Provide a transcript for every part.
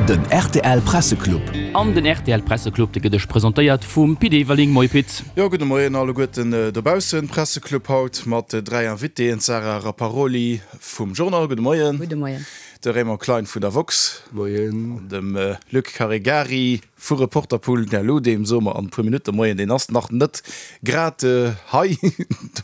Den rtl Presseclub. An den rtl Presseclub, dee gëtt iech presentéiert vum Pit Everling. Moie Pit. Jo, gudde Moien alleguerten dobaussen. Presseclub haut mat 3 Invitéen, d'Sarah Rapparoli vum Journal, gudde Moien. Gudde Moien. De Raymond Klein vun der Woxx. Moien. An dem Luc Caregari. Vu Reporterpool Gallo, deem soe mer an e puer Minutte Moien, deen ass nach net grad hei,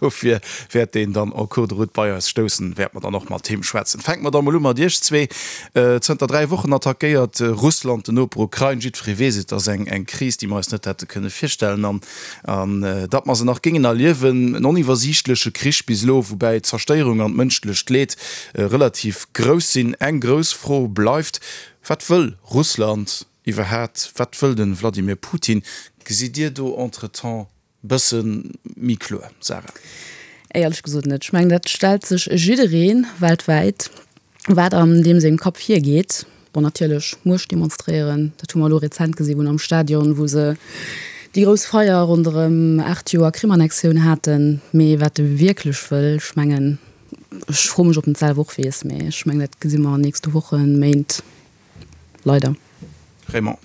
dofir wäert deen dann en cours de route bei eis stoussen, wäerte mer dann och mat him schwätzen. Fänke mer da mol u mat iech zwee. Zënter 3 Wochen attackéiert Russland den Noper Ukrain. Jiddweree weess et, ass eng Kris, déi mer eis net hätte kënne virstellen an datt mer se nach géingen erliewen. En oniwwersiichtleche Krich bis elo, woubäi d'Zerstéierung an d'mënschlecht Leed relativ grouss sinn. Eng grouss Fro bleift, Wat wëll Russland? Iwwerhaat, wat wëll den Vladimir Putin? Gesitt Dir do entretemps bëssen méi kloer, Sarah? Éierlech gesot net. Ech mengen, dat stellt sech jiddereen weltwäit, wat an deem sengem Kapp virgeet. Bon, natierlech Muecht demonstréieren, dat hu mer elo rezent gesi wou am Stadion, wou se déi grouss Feier ronderëm 8 Joer Krim-Annexioun haten. Mee wat e wierklech wëll, ech mengen, ech froe mech, ob en et selwer och weess, mee ech mengen, dat gesi mer an nächste Wochen, Méint. Leider. Raymond.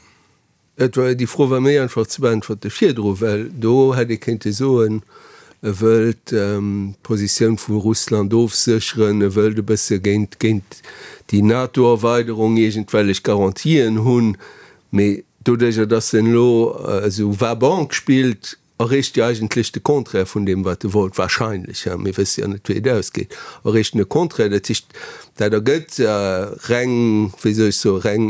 Et war, déi Fro war méi einfach ze beäntwerte virdru, well do hätt ee kéinte soen, e wëllt d'Positioun vu Russland ofsécheren, e wëllt e bësse géint, géint déi NATO-Erweiderung iergendwellech Garantien hunn. Mee doduerjer, datt en elo esou va-banque spillt, Erreecht jo eigentlech de Contraire vun deem, wat e wollt, wahrscheinlech, hein, mir wësse jo net, wéi et ausgeet, erreecht en de Contraire, dat heescht, dat ergëtt reng, wéi soll ech soen, reng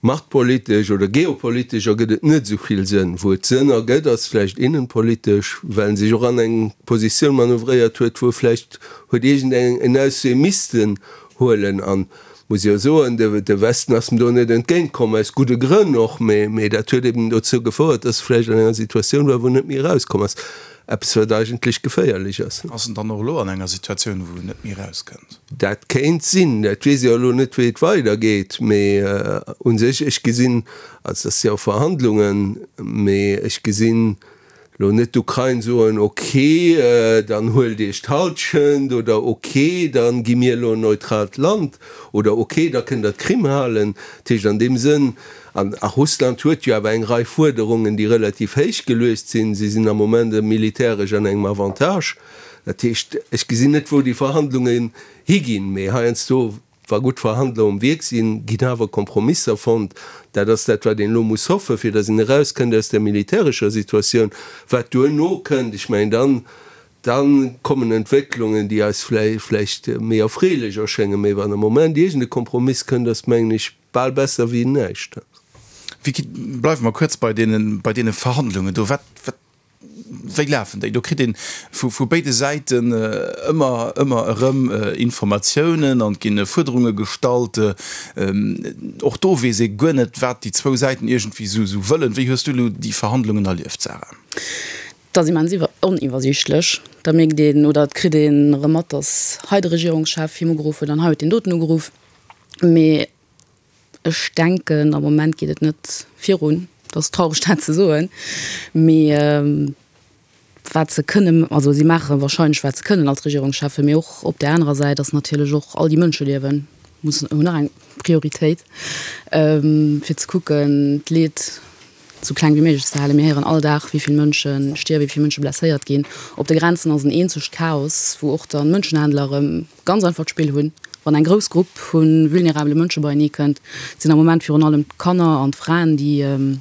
machtpolitesch oder geopolitesch ergëtt et net esou vill Sënn. Wou et Sënn ergëtt, ass vläicht innenpolitesch, well en sech och an eng Positioun manövréiert huet, wou e vläicht huet iergendeng en Auswee missten huelen. An muss jo soen, de Westen ass em do net entgéint komm, aus gudde Grënn och, mee dat huet eben dozou gefouert, dass e vläicht an enger Situatioun war, wou en net méi erauskomm ass, eppes wat eigentlech geféierlech ass. Ass en dann och elo an enger Situatioun, wou en net méi erauskënnt? Dat kéint sinn. Dat weess ech jo elo net, wéi et weidergeet, mee u sech, ech gesinn, also dat si jo Verhandlungen, mee ech gesinn Lo net d'Ukrain soen, ok, dann huelt Iech d'Halschent oder ok, dann gi mir elo en neutraalt Land oder ok, da kënnt der d'Krim halen. Dat heescht an deem Sënn, an a Russland huet jo awer eng Rei Fuerderungen, déi relativ héich geluecht sinn, si sinn am Moment militäresch an engem Avantage. Dat heescht, ech gesinn net, wou déi Verhandlungen higinn, mee heiansdo Wa gutt Verhandler um Wierk sinn, ginn awer Kompromisser fonnt. Dat ass dat, wat een elo muss hoffen, fir datt een erauskënnt aus där militärescher Situatioun. Wat duerno kënnt, ech mengen, dann, da kommen Entwécklungen, déi eis vläicht méi erfreelech erschéngen. Mee wann am Moment iergend e Kompromiss kënnt, ass, mengen ech, bal besser wéi näischt. Vicky, bleiwe mer kuerz bei deene, bei deene Verhandlungen do. Wat, wat Wéi lafen déi? Do kritt een vu béide Säiten ëmmer, ëmmer erëm Informatiounen an et ginn Fuerderunge gestallt. Och do weess ee guer net, wat déi zwou Säiten iergendwéi esou wëllen. Wéi hues du elo déi Verhandlungen erlieft, Sarah? Dat ass immens oniwwersiichtlech. Da mierkt een oder et kritt een erëm mat, datt hei de Regierungschef him ugeruff huet an hei huet deen doten ugeruff. Mee Ech denken, am Moment geet et net virun. Et ass traureg dat ze soen, mee wat se kënnen, also si maache wahrscheinlech wat se kënnen als Regierungscheffen, mee och op där anerer Säit ass natierlech och all déi Mënscheliewen mussen, hunn nach eng Prioritéit, fir ze kucken d'Leed esou kleng wéi méiglech ze halen. Mir héieren all Dag wéi vill Mënsche stierwen, wéi vill Mënsche blesséiert ginn. Op de Grenzen ass en eenzegt Chaos, wou och dann Mënschenhändler erëm ganz einfach d'Spill hunn, wann eng grouss Grupp vu vulnerabele Mënsche beienee kënnt. Et sinn am Moment virun allem d'Kanner an d'Fraen, déi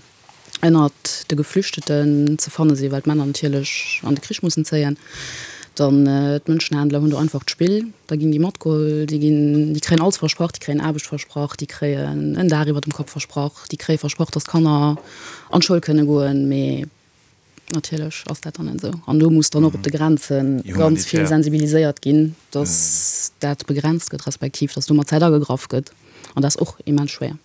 ënnert de Geflüchteten ze fanne sinn, well d'Männer natierlech an de Krich mussen zéien. Dann d'Mënschenhändler hunn do einfach d'Spill, da ginn déi matgeholl, déi ginn, déi kréien alles versprach, déi kréien Aarbecht versprach, déi kréien en Daach iwwer dem Kapp versprach, déi kréie versprach, datt d'Kanner an d'Schoul kënne goen, mee natierlech ass dat dann net esou. An do muss dann och op de Grenze ganz vill sensibiliséiert ginn, datt dat begrenzt gëtt, respektiv datt do mat Zäit agegraff gëtt, an dat ass och immens schwéier.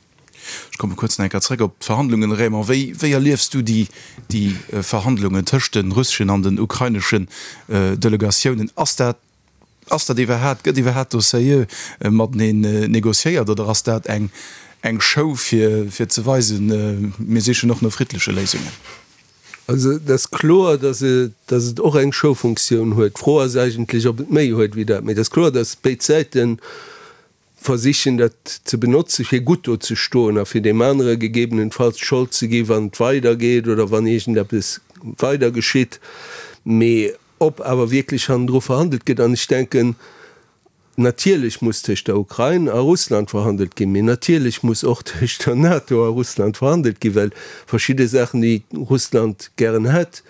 Ech komme kuerz nach eng Kéier zréck op d'Verhandlungen. Raymond, wéi, wéi erliefs du déi, déi Verhandlungen tëscht de russeschen an den ukraineschen Delegatiounen? Ass dat, ass dat iwwerhaapt, gëtt iwwerhaapt do sérieux mateneen négociéiert oder ass dat eng, eng Show fir, fir ze weisen, mir sichen och no friddleche Léisungen? Also et ass kloer, datt et, datt et och eng Showfunktioun huet. D'Fro ass eigentlech, ob et méi huet wéi dat. Mee et ass kloer, datt béid Säiten. versichen dat ze benotze fir gutt do ze stoen a fir deem anere gegebenenfalls d'Schold ze gi wann et weidergeet oder wann iergendeppes weider geschitt. Mee ob awer wierklech hannendru verhandelt gëtt, an ech denken, natierlech muss tëscht der Ukrain a Russland verhandelt ginn, mee natierlech muss och tëscht der NATO a Russland verhandelt ginn, well verschidde Saachen, déi Russland gären hätt,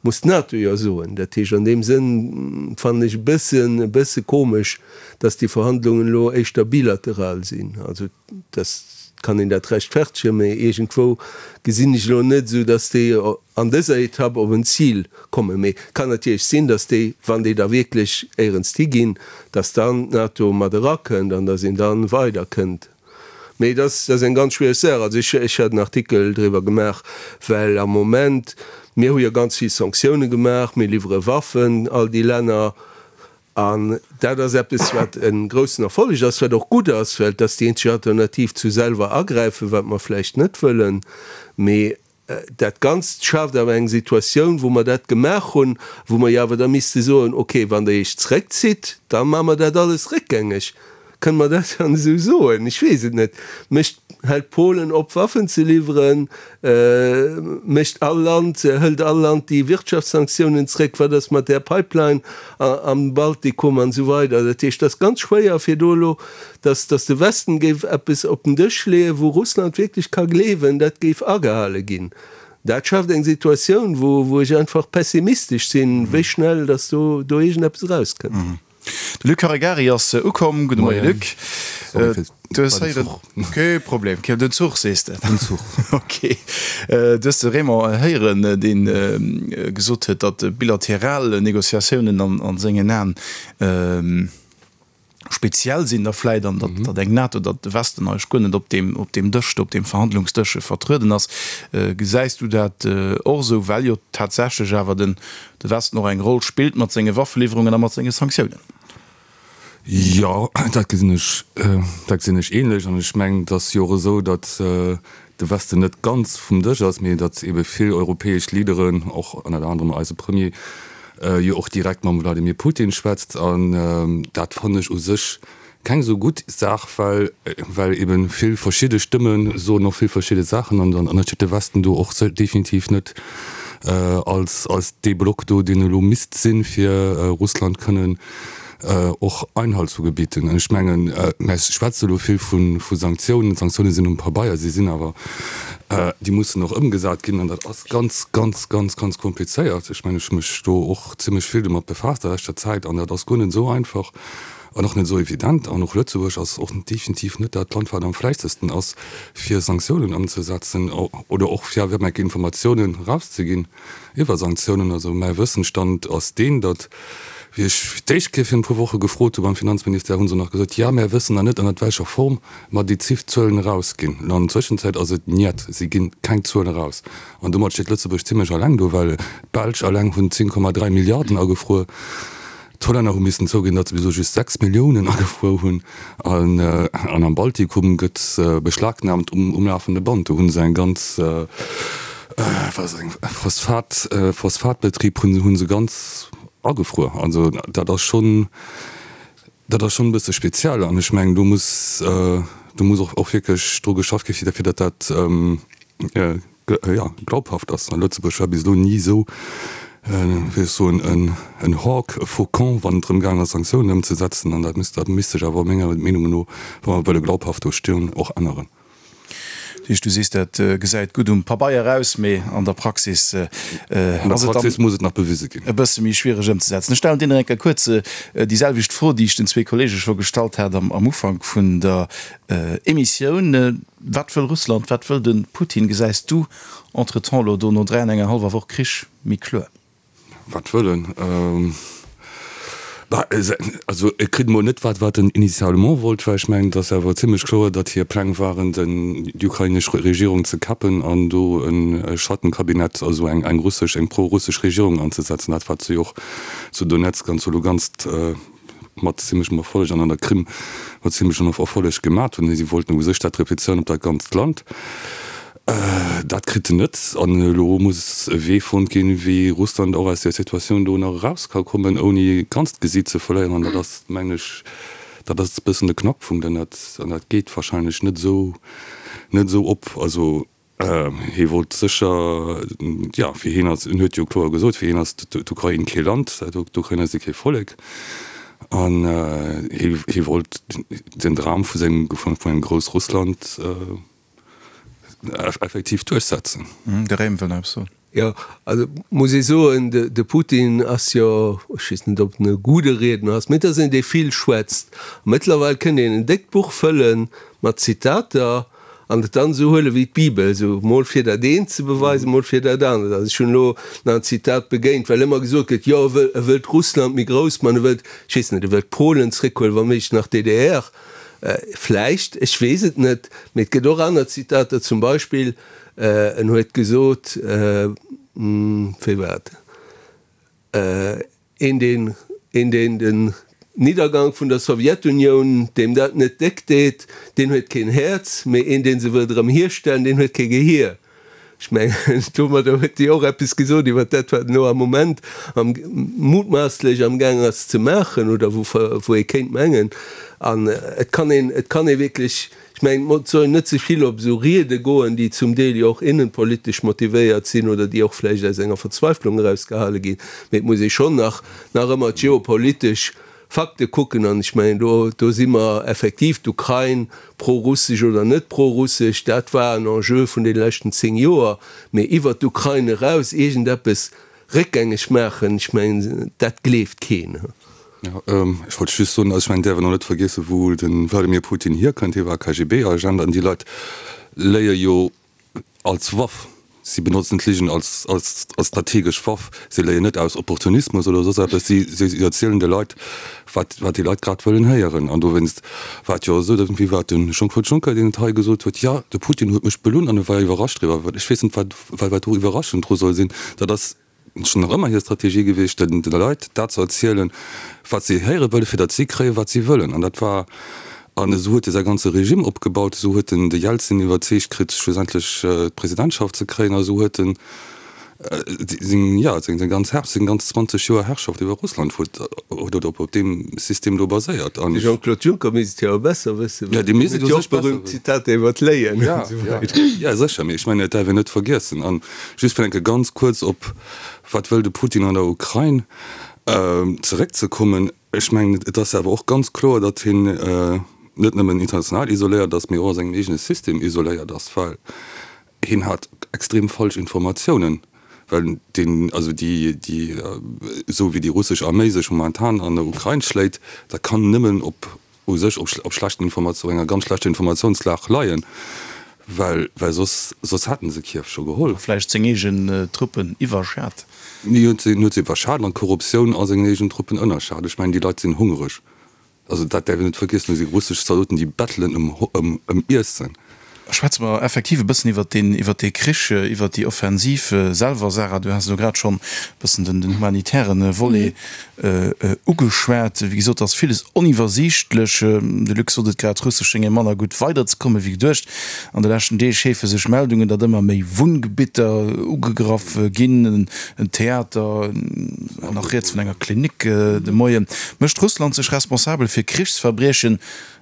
Muss d'NATO jo soen. Dat heescht, an deem Sënn fannen ech e bëssen, e bësse komesch, dass déi Verhandlungen elo éischter bilateral sinn. Also, dass kann een dat rechtfertegen, mä iergendwou gesinn ech elo net esou, dass déi an dëser Etapp op en Zil kommen. Mee et kann natierlech sinn, dass déi, wann déi da wierklech éierens higinn, dass dann d'NATO mat erakënnt an dass een da weiderkënnt. Mee dat ass eng ganz schwiereg Saach. Also ech, ech hat en Artikel driwwer gemaach, well am Moment, mir hu jo ganz vill Sanktioune gemaach, mir liwwere Waffen all déi Länner, an dat ass eppes, wat e groussen Erfolleg ass, wat och gutt ass, well et ass déi eenzeg Alternativ zu selwer agräifen, wat mer vläicht net wëllen. Mee Dat Ganzt schaaft awer eng Situatioun, wou mer dat gemaach hunn, wou mer jo awer da misste soen, okay, wann Der Iech zréckzitt, da maache mer dat alles réckgängeg. Kënne mer dat dann esou soen? Ech weess et net. Mécht, hält Polen op, Waffen ze liwweren? Mécht all Land, hëlt all Land déi Wirtschaftssanktiounen zréck? Wat ass mat där Pipeline am Baltikum an esou weider? Dat heescht, et ass ganz schwéier, fir do elo Dass, dass de Westen géif eppes op den Dësch leeën, wou Russland wierklech ka gleewen, dat géif agehale ginn, dat schaaft eng Situatioun, wou, wou ech einfach pessimistesch sinn, wéi schnell dass do, do iergendeppes erauskënnt. De Luc Caregari ass ukomm. Gudde Moie Luc. Du hues héieren. Kee Problem. Den Zuch sees de? Den Zuch. Ok. Du hues de Raymond héieren, dee gesot huet, datt bilateral Negociatiounen an sengen Aen speziell sinn da vläit an datt datt eng NATO, datt de Westen eigentlech guer net op deem op deem Dësch do, op deem Verhandlungsdësch vertrueden ass. Gesäis du dat och esou, well jo tatsächlech awer den de Westen och eng Roll spillt mat senge Waffeliwwerungen a mat senge Sanktiounen? Jo, dat gesinn ech, dat gesinn ech ähnlech. An ech mengen, et ass jo och esou, datt de Westen net ganz vum Dësch ass, mee datt ebe vill europäesch Leaderen, och ënnert anerem eise Premier, jo och direkt mam Wladimir Putin schwätzt. An dat fannen ech u sech keng esou gutt Saach, well well ebe vill verschidde Stëmme soen och vill verschidde Saachen an dann steet de Westen do och definitiv net als als dee Block do, deen elo misst sinn, fir Russland kënnen och Einhalt zu gebieten. An ech mengen, mä ech schwätze elo vill vu Sanktiounen. D'Sanktioune sinn um Pabeier, si sinn awer, déi mussen och ëmgesat ginn an dat ass ganz, ganz, ganz, ganz komplizéiert. Ech mengen, ech hu mech do och zimlech vill domat befaasst a leschter Zäit an dat ass guer net esou einfach an och net esou evident. An och Lëtzebuerg ass och definitiv net dat Land, wat am fläissesten ass, fir Sanktiounen ëmzesetzen oder och fir awer eng Kéier Informatiounen erauszeginn. Iwwer Sanktiounen, also mäi Wëssensstand ass deen, datt, wéi ech fir d'éischt Kéier virun e puer Woche gefrot hu beim Finanzministère, hu se nach gesot, jo, mär wëssen nach net, ënnert welcher Form mer déi Zif Zuelen erausginn. An an der Zwëschenzäit ass et niet, si ginn keng Zuelen eraus. An domat steet Lëtzebuerg zimlech alleng do, well d'Belsch alleng hunn 10,3 Milliarden agefruer. D'Hollänner hu missen zouginn, datt se bis elo just 6 Milliounen agefruer hunn. An am Baltikum gëtt beschlagnaamt um lafende Band. Do hu se eng ganz, wat ass eng, Phosphat, Phosphatbetrib hu se ganz agefruer. Also dat ass schonn, dat ass schonn e bësse speziell. An ech mengen, do muss, do muss och wierklech dru geschafft gi fir datt dat, jo, glaubhaft ass. Lëtzebuerg war bis elo ni esou, wéi ech soen, en Hawk, e Faucon, wann et drëm gaang ass, Sanktiounen ëmzesetzen. An dat misst, dat misst sech awer menger Meenung no, wa mer wëlle glaubhaft do stoen, och änneren. Dat heescht, du sees, dat gesäit gutt um Pabeier aus, mee an der Praxis ass et dann muss et nach bewise ginn. E bësse méi schwiereg ëmzesetzen. Ech stellen dir nach eng Kéier kuerz déi selwecht Fro, déi ech den zwee Kollege scho gestallt hat am Ufank vun der Emissioun. Wat wëll Russland, wat wëll de Putin? Gesäis du entretemps elo do no 3 an enger hallwer Woch Krich méi kloer? Wat wëll en? Bah, also e kritt emol net wat wat en initialement wollt, well ech mengen, et ass awer zimlech kloer, datt hir Pläng waren, den déi ukrainesch Regierung ze kappen an do e Schattenkabinett, also eng eng russesch, eng pro-russesch Regierung anzesetzen, dat wat se jo och zu Donezk an zu Lugansk mat zimlechem Erfolleg an an der Krim mat zimlechem Erfolleg gemat hunn. Si wollten u sech dat replizéieren op dat ganzt Land. Dat kritt en net. An elo muss e Wee fonnt ginn, wéi Russland och aus där Situatioun do nach eraus ka kommen, ouni ganz d'Gesiit ze verléieren. An dat ass, mengen ech, Dat ass e bëssen de Knackpunkt an dat, an dat geet wahrscheinlech net esou, net esou op. Also hie wollt sécher, jo, fir hien ass, en huet jo kloer gesot, fir hien ass d'Ukrain kee Land, d'Ukrainer si kee Vollek an hie, hie wollt den Dram vu sengem, vun engem Groussrussland effektiv duerchsetzen. De Raym wëll nach eppes soen. Jo, also muss ee soen, de Putin ass jo, ech weess net, ob en e gudde Riedner ass, mee et ass een, dee vill schwätzt. A mëttlerweil kënnt een en déckt Buch fëlle mat Zitater an et dann esou huele wéi d'Bibel, esou mol fir dat eent ze beweisen, mol fir dat anert. Also ech hunn elo nach en Zitat begéint, well ëmmer gesot gëtt, jo e wëll, e wëllt Russland méi grouss man, e wëllt, ech weess net, e wëllt Polen zréckhuelen, wa méiglech nach d'DDR, vläicht, ech weess et net. Mee et gëtt och aner Zitater, zum Beispill, En huet gesot, wéi war et, een deen, een deen den Niddergank vun der Sowjetunioun, deem dat net déck deet, deen huet keen Häerz, mee een deen se wëllt erëm hierstellen, deen huet kee Gehier. Ech mengen, domadder huet hie och eppes gesot iwwer dat, wat en elo am Moment am, mutmaasslech amgaang ass ze maachen oder wou, wou ee kéint mengen. An et kann een, et kann ee wierklech, Ech mengen, et soll een net ze vill op esou Riede goen, déi zum Deel jo och innenpolitesch motivéiert sinn oder déi och vläicht aus enger Verzweiflung eraus gehale ginn, mee et muss ee schonn nach nach ëmmer d'geopolitesch Fakte kucken. An ech mengen, do do si mer effektiv, d'Ukrain, prorussesch oder net prorussesch, dat war en Enjeu vun deene leschten 10 Joer, mee iwwert d'Ukrain eraus iergendeppes réckgängeg maachen, ech mengen, dat gleeft keen. Jo, ech wollt just soen, also ech mengen, däerf een och net vergiessen, wou de Wladimir Putin hierkënnt. Hie war KGB-Agent an déi Leit léie jo als Waff. Si benotzen d'Ligen als, als, als strategesch Waff. Si léien net aus Opportunismus oder soss eppes. Si, si erzielen de Leit, wat, wat déi Leit grad wëllen héieren. An dowéinst war et jo esou, datt, wéi war et, de Jean-Claude Juncker, deen et hei gesot huet, Jo, de Putin huet mech belunn an e war iwwerrascht driwwer. Ech weess net, wat, wat, wat do iwwerraschend dru soll sinn. Dat ass schonn nach ëmmer hir Strategie gewiescht, den de Leit dat ze erzielen, wat si héiere wëllen, fir datt si kréien, wat si wëllen. An dat war, an esou huet e säi ganze Regime opgebaut, esou huet en de Jelzin iwwerzeegt kritt, schlussendlech d'Presidentschaft ze kréien, a esou huet en seng, jo, seng ganz Herr, seng ganz 20 Joer Herrschaft iwwer Russland huet huet op op deem System do baséiert. An. De Jean-Claude Juncker misst et jo awer besser wëssen, well deen huet jo och berühmt Zitater iwwer d'Léien an esou weider. Jo, sécher, mee ech mengen, et däerf een net vergiessen. An Just fir eng Kéier ganz kuerz op wat wëll de Putin an der Ukrain zeréckzekommen. Ech mengen, et ass awer och ganz kloer, datt hien net nëmmen international isoléiert ass, mee och a sengem eegene System isoléiert ass, well hien hat extrem falsch Informatiounen, well deen, also déi, déi, esou wéi déi russesch Arméi sech momentan an der Ukrain schléit, dat kann nëmmen op u sech op schlechten Informatioun, enger ganz schlechter Informatiounslag leien, well well soss soss hätten se Kiew scho geholl. A vläicht seng eegen Truppen iwwerschat. Hien huet se huet se iwwerschat an d'Korruptioun a sengen eegen Truppen ënnerschat. Ech mengen, déi Leit sinn hungereg. Also dat däerf een net vergiessen, do si russesch Zaldoten, déi bettelen ëm ëm ëm Iessen. Schwätze mer effektiv e bëssen iwwert deen, iwwert dee Krich, iwwert déi Offensiv selwer. Sarah, du has elo grad schonn e bëssen den, den humanitäre Volet ugeschwat. Wéi gesot, ass villes oniwwersiichtlech. De Luc sot et grad, Russesch schénge manner gutt weiderzekomme wéi geduecht. An de leschten Deeg heefe sech Meldungen, datt ëmmer méi Wunngebitter ugegraff ginn, en Theater, nach rieds vun enger Klinik de Moien. Mécht Russland sech responsabel fir Krichsverbriechen?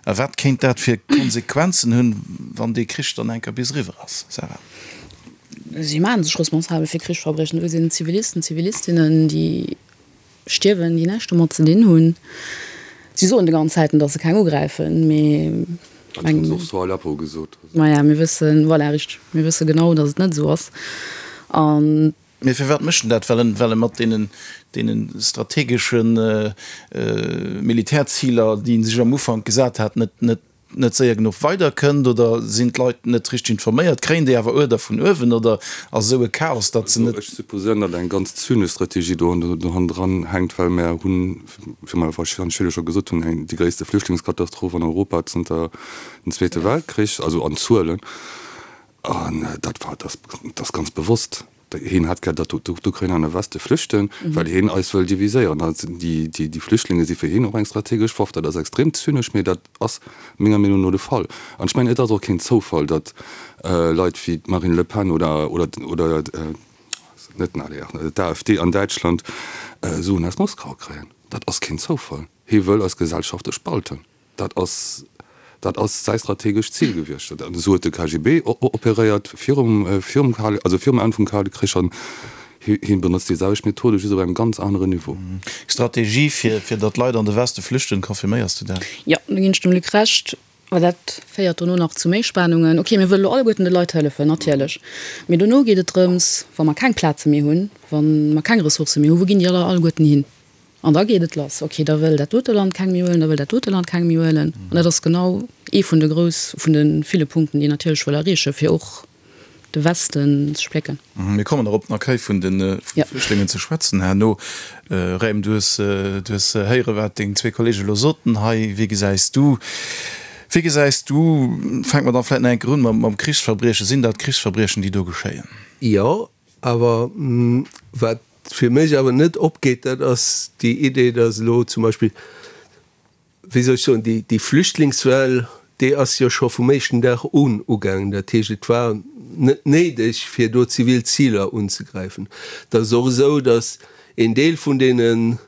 A wat kéint dat fir Konsequenzen hunn, wann dee Krich dann eng Kéier bis eriwwer ass, Sarah? Si maache sech responsabel fir Krichsverbriechen. Do sinn Zivilisten, Zivilistinnen, déi stierwen, déi näischt domat ze dinn hunn. Si soen de ganz Zäiten, datt se keng ugräifen, mee. Dat hunn se och zu Aleppo gesot. Maja, mir wëssen, voilà, richteg, mir wësse genau, datt et net esou ass. An. Mee firwat mécht en dat? Well en, well e mat deenen, deene strategesche Militärziler, déi en sech am Ufank gesat hat, net, net, net séier genuch weiderkënnt? Oder sinn d'Leit net richteg informéiert? Kréien déi awer Uerder vun uewen? Oder ass esou e Chaos, datt se net. Ech supposéieren, datt eng ganz zynesch Strategie do hannendran hänkt, well mär hunn, wéi mer wahrscheinlech virdru scho gesot hunn, eng, déi gréisste Flüchtlingskatastroph an Europa zënter dem Zweete Weltkrich, also an Zuelen. An dat war, dat ass ganz bewosst. Hien hätt gär, datt d'Ukrainer an de Weste flüchten, well hien eis wëll diviséieren. Déi Flüchtlinge si fir hien och eng strategesch Waff. Dat ass extrem zynesch, mee dat ass menger Meenung no de Fall. An ech mengen, et ass och keen Zoufall, datt Leit wéi d'Marine Le Pen oder net den ADR, d'AfD an Däitschland Suen aus Moskau kréien. Dat ass keen Zoufall. Hie wëll eis Gesellschafte spalten. Dat ass, dat ass säi strategescht Zil gewiescht. An esou huet de KGB operéiert virum, virum Kale, also virum Enn vum Kale Krich an hien benotzt déi selwecht Methode, just op engem ganz aneren Niveau. Strategie fir, fir datt Leit an de Weste flüchten, confirméiers du dat? Jo, do ginn ech dem Luc Recht. Well dat féiert dono nach zu méi Spanungen. Ok, mir wëlle lo alleguerten de Leit hëllefen, natierlech. Mee dono geet et drëms, wa mer keng Plaze méi hunn, wa mer keng Ressourcë méi hunn, wou ginn déi aller alleguerten hin? An da geet et lass, ok, da wëll dat dote Land keng méi huelen, da wëll dat dote Land keng méi huelen. An dat ass genau ee vun de grouss, vun de ville Punkten, déi een natierlech wëll erreechen, fir och de Westen ze splécken. Mir kommen nach op den Accueil vun de Flüchtlingen ze schwätzen herno. Raym, du hues, du hues héiere wat deng zwee Kollege elo soten hei. Wéi gesäis du, wéi gesäis du, fänke mer dann vläicht nach eng Kéier un mam Krichsverbriechen, sinn dat Krichsverbriechen, déi do geschéien? Jo, awer wat fir mech awer net opgeet, dat ass déi Idee, datt elo zum Beispill, wéi soll ech soen, déi, déi Flüchtlingswell, déi ass jo scho vum éischten Dag un ugaangen. Dat heescht, et war net néideg, fir do zivil Ziler unzegräifen. Et ass och esou, datt een Deel vun deene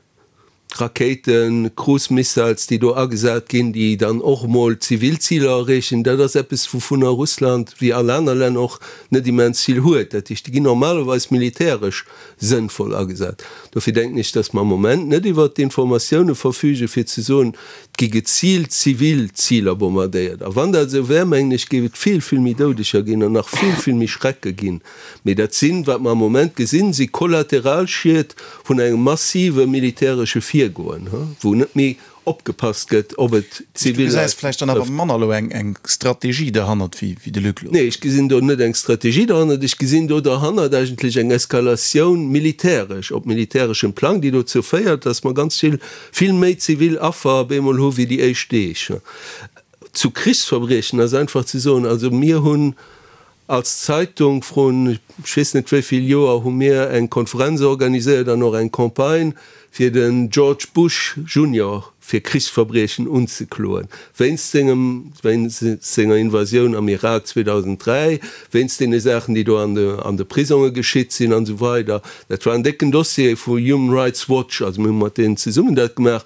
Rakéiten, Cruise Missiles, déi do agesat ginn, déi dann och emol zivil Ziler erreechen, dat ass eppes, wouvunner Russland, wéi all aner Länner och, net immens vill huet. Dat heescht, déi ginn normalerweis militäresch sënnvoll agesat. Dofir denken ech, dass mer am Moment net iwwert d'Informatioune verfügen, fir ze soen, et gi geziilt zivil Ziler bombardéiert. A wann dat esou wär, mengen ech, géif et vill, vill méi Doudeger ginn an nach vill, vill méi Schrecke ginn. Mee dat sinn, wat mer am Moment gesinn, si Kollateralschied vun engem massive militäresche Virgoen, wou net méi opgepasst gëtt, ob et zivil Leit trëfft. Du gesäis vläicht dann awer manner elo eng Strategie derhannert wéi de Luc elo. Nee, ech gesinn do net eng Strategie derhannert. Ech gesinn do derhannert eigentlech eng Eskalatioun militäresch, op militäreschem Plang, déi dozou féiert, datt mer ganz vill, vill méi zivil Affer op eemol hu wéi déi éischt Deeg. Zu Krichsverbriechen ass einfach ze soen, also mir hunn Als Zeitung vrun ech weess net wéi vill Joer hu mir eng Konferenz organiséiert an och eng Campagne fir den George Bush Junior fir Krichsverbriechen unzekloen, wéinst sengem, wéinst senger Invasioun am Irak 2003, wéinst deene Saachen déi do an de, an de Prisonge geschitt sinn an esou weider. Dat war en décken Dossier vu Human Rights Watch, also mir hu mat deenen zesummen dat gemaach.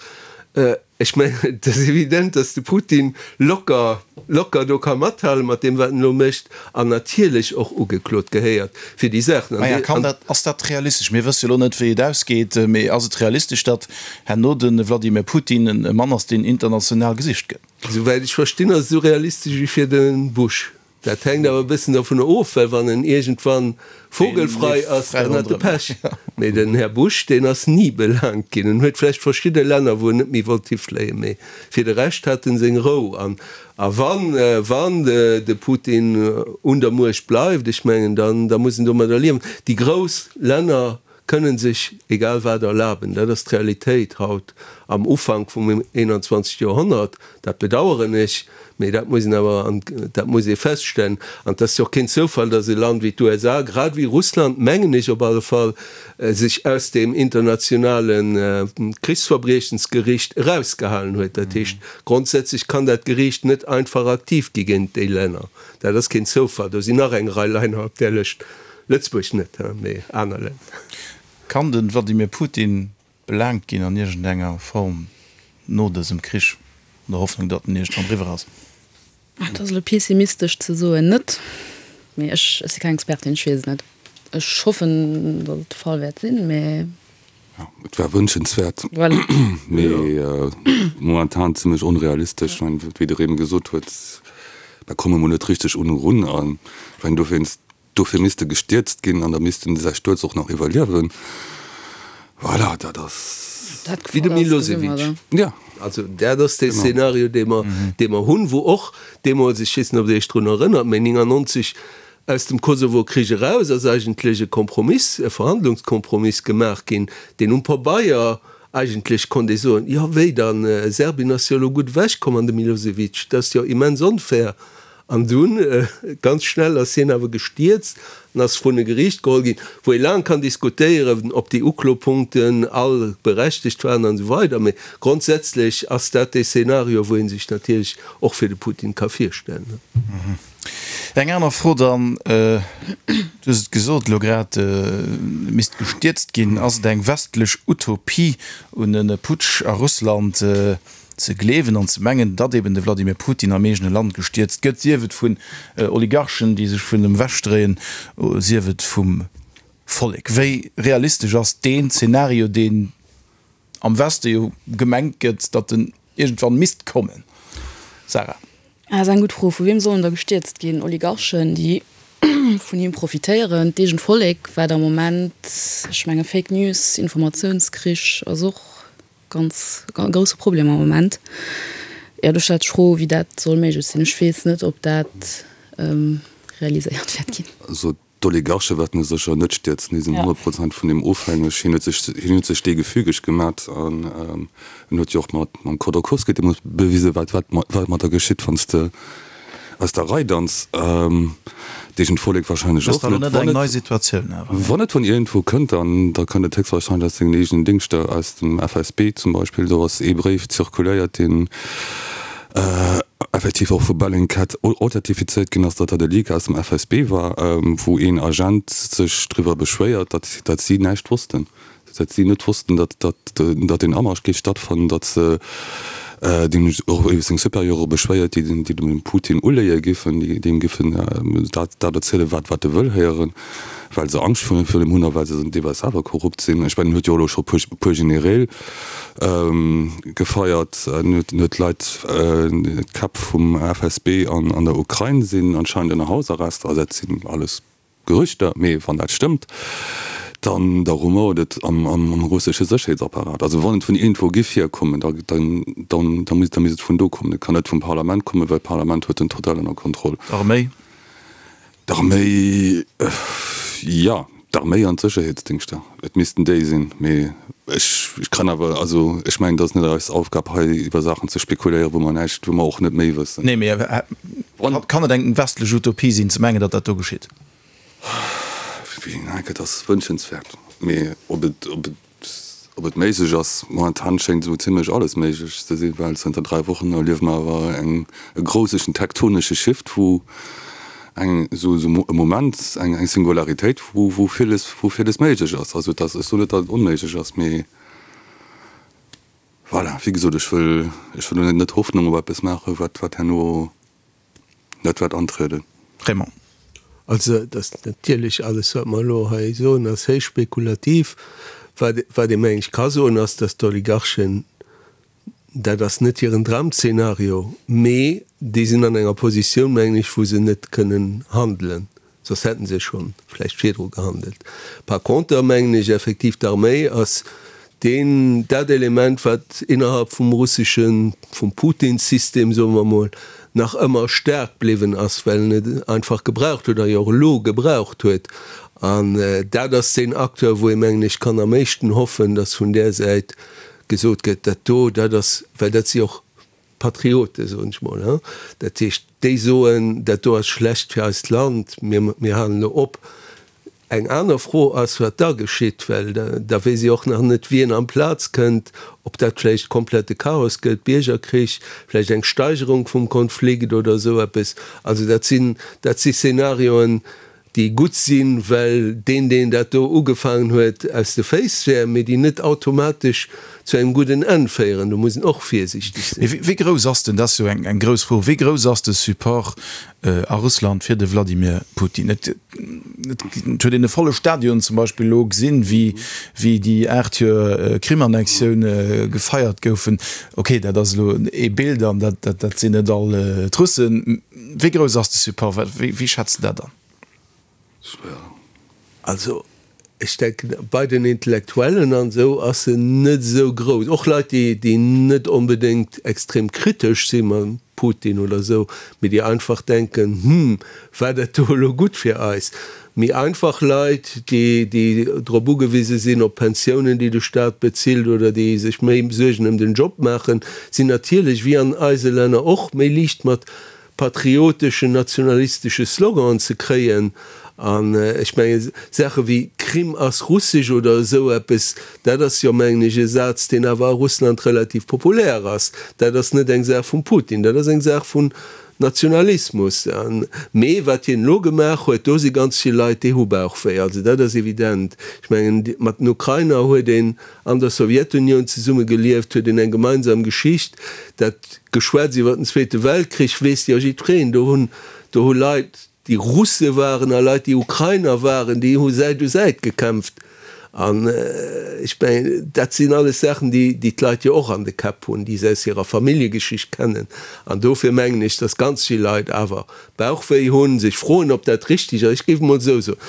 Ech mengen, et ass evident, datt de Putin locker, locker do ka mathalen mat deem, wat en elo mécht, an natierlech och ugeklot gehéiert fir déi Saachen. Maja, kann dat, ass dat realistesch? Mir wësse jo elo net, wéi et ausgeet, mee ass et realistesch, datt herno de Wladimir Putin e Mann ass, deen international gesicht gëtt? Souwäit ech verstinn, ass et esou realistesch wéi fir de Bush. Dat hänkt awer e bëssen dovunner of, well wann en iergendwann vogelfrei ass, dann hat e Pech. Mee den Här Bush, deen ass ni belaangt ginn. En huet vläicht verschidde Länner, wou en net méi wollt hifléien, mee fir de Rescht hat en seng Rou. An a wann, wann de Putin un der Muecht bleift, ech mengen, dann, da muss en domadder liewen. Déi grouss Länner kënnen sech egal wat erlaben. Dat ass d'Realitéit haut am Ufank vum 21. Joerhonnert. Dat bedaueren ech, mee dat muss een awer, dat muss ee feststellen. An et ass jo och keen Zoufall, datt e Land wéi d'USA, grad ewéi Russland, mengen ech op alle Fall, sech aus deem internationale Krichsverbriechensgericht erausgehalen huet. Dat heescht, grondsätzlech kann dat Geriicht net einfach aktiv gi géint déi Länner. Dat ass keen Zoufall. Do sinn nach eng Rei Länner op där Lëscht. Lëtzebuerg net, mee aner Länner. Kann de Wladimir Putin belaangt ginn an iergendenger Form no dësem Krich, an der Hoffnung, datt en iergendwann eriwwer ass? Et ass elo pessimistesch ze soen net, mee ech si keng Expertin, ech weess et net. Ech hoffen, datt et de Fall wäert sinn, mee. Jo, et wär wënschenswäert, mee momentan zimmlech onrealistesch. Ech mengen, wéi de Remy gesot huet, mer komme mol net richteg un erun an ech mengen dowéinst, dofir misst e gestierzt ginn an da misst en säi Stuerz och nach iwwerliewen. Voilà, dat ass. Wéi de Milosevic. Ja. Also dat ass dee Szenario, dee mer, dee mer hunn, wou och deemools, ech weess net, ob Der Iech drun erënnert, mee 99 Aus dem Kosovo-Krich eraus ass eigentlech e Kompromiss, e Verhandlungskompromiss gemaach ginn, deen um Pabeier eigentlech konnt ee soen, jo wéi dann, Serbien ass jo elo gutt ewechkomm an de Milosevic, dat ass jo immens onfair. An dunn, ganz schnell ass hien awer gestierzt an ass vrun e Geriicht geholl ginn, wou ee laang kann diskutéieren, ob déi Uklopunkten all berechtegt waren an esou weider. Mee grondsätzlech ass dat dee Szenario, wou ee sech natierlech och fir de Putin ka virstellen. Eng aner Fro dann, Du hues et gesot elo grad, et misst gestierzt ginn. Ass et eng westlech Utopie, un e Putsch a Russland? ze gleewen an ze mengen, datt eben de Wladimir Putin am eegene Land gestierzt gëtt, sief et vun Oligarchen, déi sech vun em ewechdréien, sief et vum Vollek. Wéi realistesch ass deen Zeenario, deen am Weste jo gemengt gëtt, datt en iergendwann misst kommen? Sarah. Dat ass eng gutt Fro. Vu wiem soll en da gestierzt ginn? Oligarchen, déi vun him profitéieren? D'eegent Vollek, wat am Moment, ech menge Fake News, Informatiounskrich ass och ganz e grousse Problem am Moment. Jo, do stellt sech d'Fro, wéi dat soll méiglech sinn. Ech weess net, ob dat realiséiert wäert ginn. Also d'Oligarche wäerten e sécher net stierzen. Déi sinn 100 Prozent vun deem ofhängeg. Hien huet sech, hien huet sech dee gefügeg gemat an en huet jo och mat mam Khodorkovsky deemools bewisen, wat wat wat mat der geschitt, wann s de aus der Rei danz. D'eegent Vollek wahrscheinlech och net. Wann et, wann et vun iergendwou kënnt, dann da kënnt et héchstwahrscheinlech aus sengen eegenen Dingschter, aus dem FSB zum Beispill. Do ass ee Bréif zirkuléiert, deen effektiv och vu Bellingcat authentifizéiert ginn ass, datt dat e Leak aus dem FSB war, wou een Agent sech driwwer beschwéiert, datt datt si näischt wossten. Datt si net wossten, datt datt deen Amarsch géif stattfannen, datt se deen och iwwer seng Supérieure beschwéiert, déi den déi dem Putin uléie giffen, déi deem giffen dat dat erzielen, wat wat e wëll héieren, well se Angscht virun him hunn a well se deelweis selwer korrupt sinn. Ech mengen, en huet jo och elo scho puer puer Genereel gefeiert, en huet en huet Leit, d'Käpp vum FSB an an der Ukrain sinn anscheinend ënner Hausarrest. Also dat sinn alles Gerüchter, mee wann dat stëmmt, dann da rumouert et am am russesche Sécherheetsapparat. Also wann et vun iergendwou giff hierkommen, da dann dann da misst da misst et vun do kommen. Et kann net vum Parlament kommen, well d'Parlament huet en total ënner Kontroll. D'Arméi? D'Arméi, jo, d'Arméi an d'Sécherheetsdingschter. Et missten déi sinn, mee ech ech kann awer, also ech mengen, et ass net eis Aufgab hei iwwer Saachen ze spekuléieren, wou mer näischt, wou mer och net méi wëssen. Nee, mee kann et eng westlech Utopie sinn ze mengen, datt dat do geschitt? Et ass wënschenswäert, mee ob et, ob et, ob et méiglech ass, momentan schéngt esou zimlech alles méiglech ze sinn, well zënter 3 Wochen erliewe mer awer eng e grouseschen tektonesche Shift, wou eng esou esou e Moment, eng eng Singularitéit, wou wou villes wou villes méiglech ass. Also et ass, ech soen net, datt et onméiglech ass, mee voilà, wéi gesot, ech wëll ech wëll elo net Hoffnung op eppes maachen, wat wat herno net wäert antrieden. Raymond. Also et ass natierlech, alles wat mer elo hei soen, ass héich spekulativ. Wat wat ee meng ech ka soen, ass, datt d'Oligarchen Dat ass net hiren Dramzenario, mee déi sinn an enger Positioun, mengen ech, wou se net kënnen handelen, soss hätte se scho vläicht virdru gehandelt. Par conter mengen ech effektiv, d'Arméi ass deen, dat Element, wat innerhalb vum russeschen, vum Putin-System, soe mer emol, nach ëmmer staark bliwwen ass, well en et einfach gebraucht huet a jo och elo gebraucht huet. An dat ass deen Acteur, wou ee, mengen ech, kann am éischten hoffen, datt vun där Säit gesot gëtt, dat do, dat ass, well dat si och Patrioten, soen ech mol, hein, dat heescht, déi soen, dat do ass schlecht fir eist Land, mir, mir halen elo op. Eng aner Fro ass, wat da geschitt, well da weess ee och nach net, wien amplaz kënnt, ob dat vläicht komplette Chaos gëtt, Biergerkrich, vläicht eng Steigerung vum Konflikt oder esou eppes. Also dat sinn, dat si Szenarioen, déi gutt sinn, well deen, deen dat do ugefaangen huet, aus de Féiss wär, mee déi net automatesch zu engem gudden Enn féieren. Do muss een och virsiichteg sinn. Mee wéi grouss ass denn, dat ass jo eng grouss Fro, wéi grouss ass de Support a Russland fir de Wladimir Putin? Et huet een e volle Stadion zum Beispill elo gesinn, wéi déi 8 Joer Krim-Annexioun gefeiert goufen. Okay, dat ass elo ee Bild an dat sinn net all d'Russen. Wéi grouss ass de Support? Wéi schätz de dat an? Schwéier. Also, ech denken, bei den Intellektuellen an esou ass en net esou grouss. Och Leit, déi, déi net onbedéngt extrem kritesch si mam Putin oder esou, mee déi einfach denken, Hm, war dat do elo gutt fir eis? Méi einfach Leit, déi, déi drop ugewise sinn, op Pensiounen, déi de Staat bezilt, oder déi sech méi Suergen ëm den Job maachen, sinn natierlech, wéi an eise Länner och, méi liicht mat patrioteschen, nationalistesche Sloganen ze kréien. An ech mengen, Saache wéi Krim ass russesch oder esou eppes, dat ass jo, mengen ech, e Saz, deen awer a Russland relativ populär ass. Dat ass net eng Saach vum Putin, dat ass eng Saach vun. Nationalismus. Mee wat hien elo gemaach huet, do si ganz vill Leit, déi hu Bauchwéi. Also dat ass evident. Ech mengen, mat den Ukrainer huet een an der Sowjetunioun zesumme gelieft, huet een eng gemeinsam Geschicht. Dat Geschwätz iwwer den Zweete Weltkrich weess jo jiddwereen. Do hunn, do hu Leit, déi Russe waren a Leit, déi Ukrainer waren, déi hu Säit u Säit gekämpft. An ech mengen, dat sinn alles Saachen, déi déi d'Leit jo och an de Käpp hunn, déi se aus hirer Familljegeschicht kennen. An dofir mengen ech, datt ganz vill Leit awer Bauchwéi hunn, sech froen, ob dat richtig ass. Ech géif emol esou soen,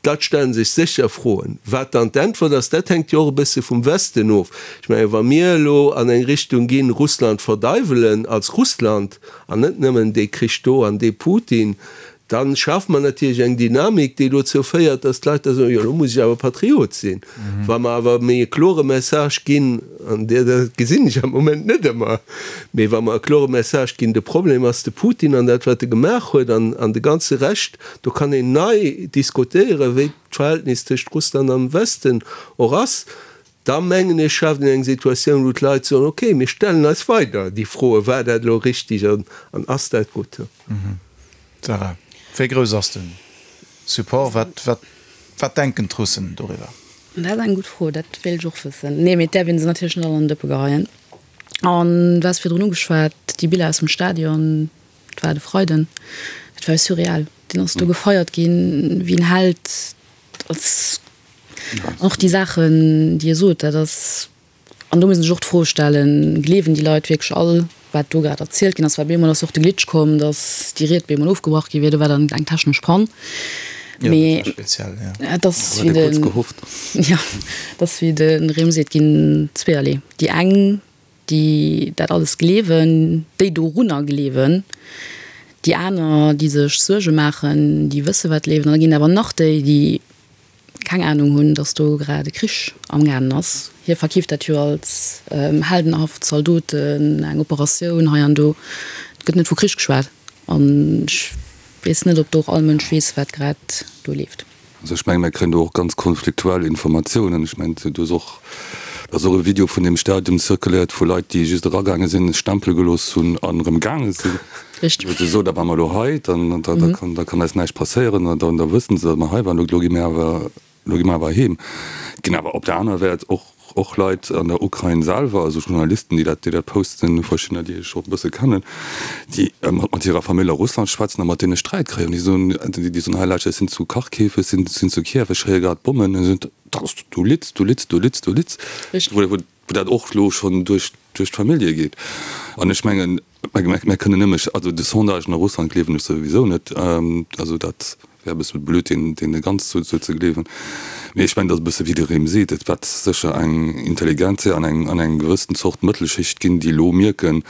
D'Leit stellen sech sécher Froen. Wat dann d'Äntwert ass, dat hänkt jo och e bësse vum Westen of. Ech mengen, wa mir elo an eng Richtung ginn, Russland verdeiwelen als Russland an net nëmmen dee Krich do an dee Putin, da schafe mer natierlech eng Dynamik, déi dozou féiert, datt d'Leit da soen, jo elo muss ech awer Patriot sinn. Wa mer awer méi e klore Message ginn, an dat gesinn ech am Moment net ëmmer, mee wa mer e klore Message ginn, de Problem ass de Putin an dat wat e gemaach huet an de ganze Rescht, Do kann een nei diskutéieren, wéi d'Verhältnis tëscht Russland an dem Westen och ass. Da mengen ech, schaaft een eng Situatioun, wou d'Leit soen, okay, mir stellen eis weider déi Froen, war dat elo richtig an ass dat gutt? Sarah, wéi grouss ass de Support? Wat, wat denken d'Russen doriwwer? Dat ass eng gutt Fro, dat wéilt ech och wëssen. Nee, mee et däerf ee se natierlech net all an d'Dëppe geheien. An du has virdrun ugeschwat, déi Biller aus dem Stadion, Et war de Freiden, et war surreal. Deen ass do gefeiert ginn wéi en Held. Als och déi Saachen, déi e sot, dat ass, an do muss een sech och d'Fro stellen, gleewen déi Leit wierklech all, wat do grad erzielt ginn ass? Well bemol ass och de Glitch komm, datt déi Ried bemol ofgebrach gi wier, do war dann eng technesch Pann. Mee et ass wéi de, jo, et ass wéi de Rem seet, ginn zweeërlee. Déi eng déi dat alles gleewen, déi dorunner gleewen, déi aner, déi sech Suerge maachen, déi wësse wat leeft, an da ginn awer nach déi, déi keng Anung hunn, datt do grad e Krich amgaangen ass. Hie verkeeft dat jo als heldenhaft Zaldoten, eng Operatioun hei an do. Et gëtt net vu Krich geschwat an ech weess net, ob do och all Mënsch weess, wat grad do leeft. Also ech mengen, mir kréien do och ganz konfliktuell Informatiounen. Ech mengen, do ass och, do ass och e Video vun deem Stadium zirkuléiert vu Leit, déi just eragaange sinn, Stempele gelooss hunn an erëm gaange sinn. Richteg. Wou se soen, da ware mer elo hei, dann, da, da kann, da kann eis näischt passéieren an da wëssen se, datt mer hei waren, elo gi mir awer, elo gi mer awer heem. Et ginn awer op der anerer Wäert och Och Leit an der Ukrain selwer, also Journalisten, déi dat, déi dat posten, verschiddener, déi ech och e bësse kennen, déi mat hirer Famill a Russland schwätzen a mat deene Sträit kréien. Déi soen, déi soen, hei Leit, ech sinn zu Kharkiv, ech sinn, sinn zu Kiew, ech héiere grad Bommen. An si soen, dat ass, du litz, du litz, du litz, du litz. Wou, wou dat och elo schonn duerch, duerch d'Famillje geet. An ech mengen, Mä kënnen nëmme, also de Sondagen a Russland gleewen ech souwisou net, also dat wär e bësse blöd deene ganz sou ze gleewen. Mee ech mengen, et ass e bësse wéi de Rem seet, et wäert sécher eng Intelligentsia an eng an eng gewëssen Zort Mëttelschicht ginn, déi elo mierken,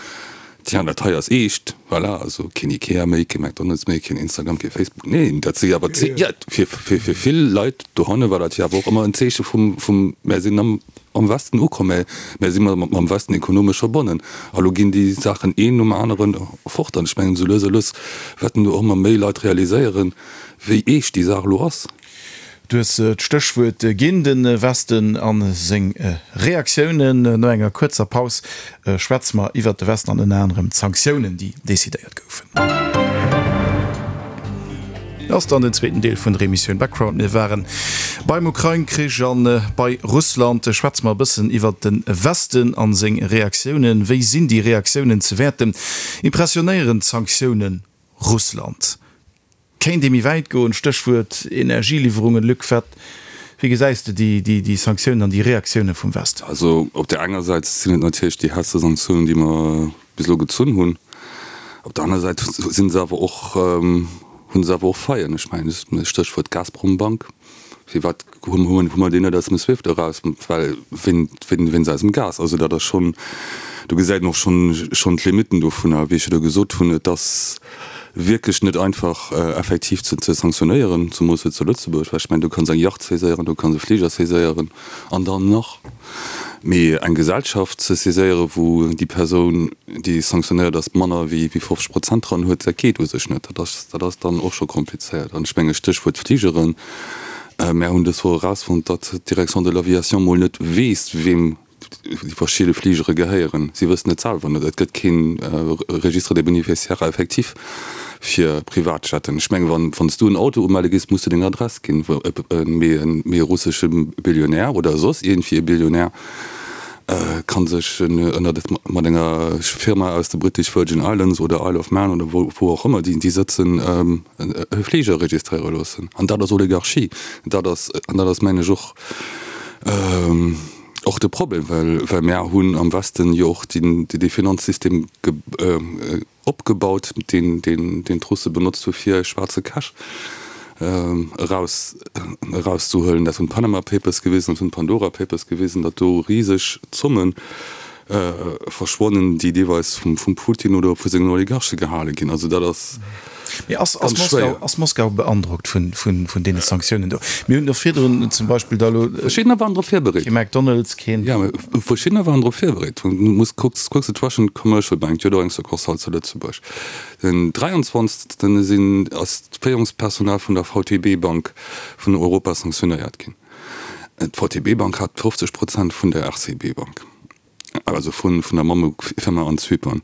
tiens, dat hei ass eescht, voilà, also keen Ikea méi, kee McDonald's méi, keen Instagram, kee Facebook. Neen, dat si awer, jo, fir fir vill Leit dohanne war dat jo awer och ëmmer en Zeeche vum vum mär sinn am am Westen ukomm, mä mär si mam Westen ekonomesch verbonnen. A lo ginn déi Saachen een nom anere fort. An ech mengen, esou lues a lues wäerten do och ëmmer méi Leit realiséieren, wéi eescht déi Saach elo ass. Du hues d'Stéchwuert ginn, de Westen a seng Reaktiounen. No enger kuerzer Paus schwätze mer iwwert de Westen an ënner anerem d'Sanktiounen, déi decidéiert goufen. Ass dann den zweeten Deel vun der Emissioun Background. Mir waren beim Ukrain-Krich an bei Russland. Schwätze mer e bëssen iwwert de Westen an seng Reaktiounen. Wéi sinn déi Reaktiounen ze wäerten? Impressionéieren d'Sanktioune Russland? Kéint ee méi wäit goen? Stéchwuert Energieliwwerungen. Luc, wat, wéi gesäis de déi Sanktiounen an déi Reaktioune vum Westen? Also op där enger Säit sinn et natierlech déi haartste Sanktiounen, déi mer bis elo gezunn hunn. Op der aner Säit si se awer och, hu se awer och Faillen. Ech mengen, Stéchwuert Gazprombank. Firwat hu mer déi net aus dem Swift eraus? Well wéinst eisem Gas. Also dat ass schonn, do gesäit een och schonn d'Limitten dovunner. Wéi ech jo do gesot hunn, et ass wierklech net einfach effektiv ze sanktionéieren, zemoos hei zu Lëtzebuerg, well ech mengen, du kanns eng Yacht saiséieren, du kanns e Fliger saiséieren an dann nach. Mee eng Gesellschaft ze saiséieren, wou déi Persoun, déi sanktionéiert ass, manner wéi 50 Prozent dran huet, dat geet u sech net. Dat ass, dat ass dann och scho komplizéiert. An ech menge Stéchwuert Fligeren, Mär hunn dës Woch erausfonnt, datt d'Direction de l'aviation mol net weess, weem. déi verschidde Fligere gehéieren. Si wëssen et selwer net. Et gëtt kee Registre des bénéficiaires effectifs fir Privatjetten. Ech mengen, wann wann s du en Auto umelle gees, muss du deng Adress ginn. Mee e russesche Billionär oder soss iergendwéi e Billionär ka sech ënnert mat enger Firma aus de British Virgin Islands oder Isle of Man oder wou och ëmmer déi sëtzen, e Fliger registréiere loossen. An dat ass Oligarchie. Dat ass, an dat ass mengen ech och, och de Problem, well, well mär hunn am Westen jo och dee Finanzsystem opgebaut, deen, deen, deen d'Russe benotzt hu fir schwaarze Cash eraus, erauszehuelen. Dat hunn d'Panama Papers gewisen, dat hunn d'Pandora Papers gewisen, datt do riseg Zommen verschwonnen, déi deelweis vum Putin oder vu sengen Oligarche gehale ginn. Also dat ass Mee ass ganz schwéier. Ass Moskau beandrockt vun deene Sanktiounen do? Mir hunn och virdrun zum Beispill da elo. Verschiddener waren drop virbereet. Kee McDonald's, keen. Jo, mee verschiddener waren drop virbereet. Du muss kucks, kucks de d'Russian Commercial Bank, déi huet och eng Succursale zu Lëtzebuerg. Den 23. sinn, ass d'Féierungspersonal vun der VTB Bank vun Europa sanktionéiert ginn. D'VTB Bank hat 50 Prozent vun der RCB Bank, also vun der Mammefirma an Zypern.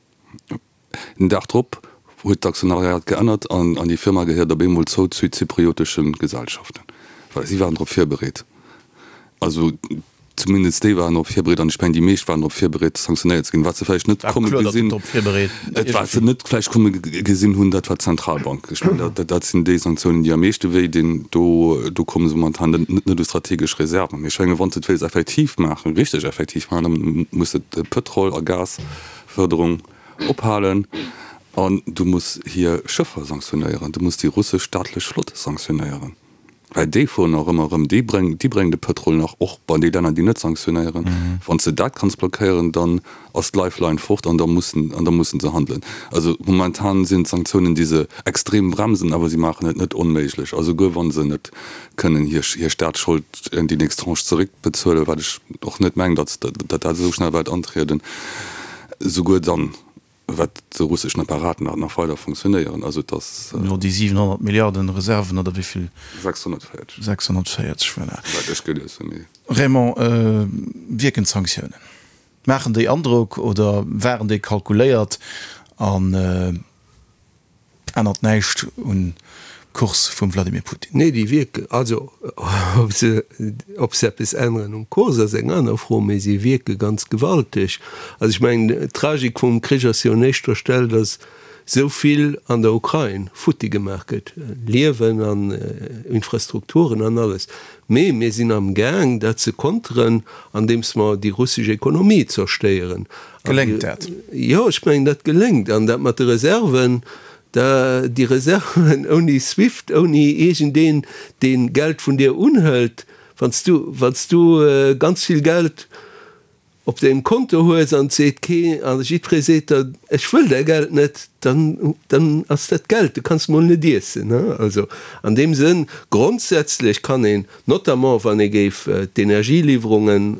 Den Dag drop huet d'Aktionariat geännert an déi Firma gehéiert op eemol zou zu zypriotesche Gesellschaften. Voilà, si waren drop virbereet. Also zumindest déi waren drop virbereet an ech mengen déi meescht waren drop virbereet sanktionéiert ze ginn. Wat se vläicht net komme gesinn, wat se net vläicht komme gesinn hunn, dat war d'Zentralbank. Ech mengen dat dat sinn déi Sanktiounen déi am meeschte wéi dinn. Do do komme se momentan net net u strategesch Reserven. Mee ech menge wann se et wéills effektiv maachen, richteg effektiv maachen, da muss de Pëtrol a Gasfërderung ophalen an du muss hir Schëffer sanktionéieren, du muss déi russesch staatlech Flott sanktionéieren. Well déi fueren nach ëmmer erëm, déi bréngen, déi bréngen de Pëtrol nach och bei déi Länner, déi net sanktionéieren. Wann s de dat kanns blockéieren, dann ass d'Lifeline fort an da mussen, an da mussen se handelen. Also momentan sinn d'Sanktiounen, déi se extrem bremsen, awer si maachen et net onméiglech. A souguer wa se net kënnen hir, hir Staatsschold, déi nächst Tranche zeréckbezuelen, wat ech och net mengen, datt, datt dat esou schnell wäert antrieden, souguer dann Wat de russeschen Apparat nach nach weider funktionéieren. Also et ass. Jo, déi 700 Milliarden Reserven, oder wéi vill? 640. 640, voilà. Wat ech gelies hunn, mee. Raymond, wierken d'Sanktiounen? Maachen déi Androck oder waren déi kalkuléiert an Ännert näischt un Kurs vum Vladimir Putin. Nee, déi wierken, also ob se, ob se eppes änneren um Kurs ass eng aner Fro, mee si wierke ganz gewalteg. Also ech mengen, d'Tragik vum Krich ass jo un éischter Stell, datt esou vill an der Ukrain futti gemaach gëtt, Liewen an Infrastrukturen an alles. Mee mir sinn amgaang dat ze konteren, andeems mer déi russesch Ekonomie zerstéieren. Geléngt dat? Jo, ech mengen, dat geléngt. An dat mat de Reserven, da, déi Reserven ouni Swift, ouni iergendeen, dee Geld vun dir unhëlt, wann s du, wann s du ganz vill Geld op dengem Konto hues an et seet kee, a jiddweree seet der, ech wëll däi Geld net, dann, dann ass dat Geld, du kanns mol net iessen. Also an deem Sënn, grondsätzlech kann een, notamment wann ee géif d'Energieliwwerungen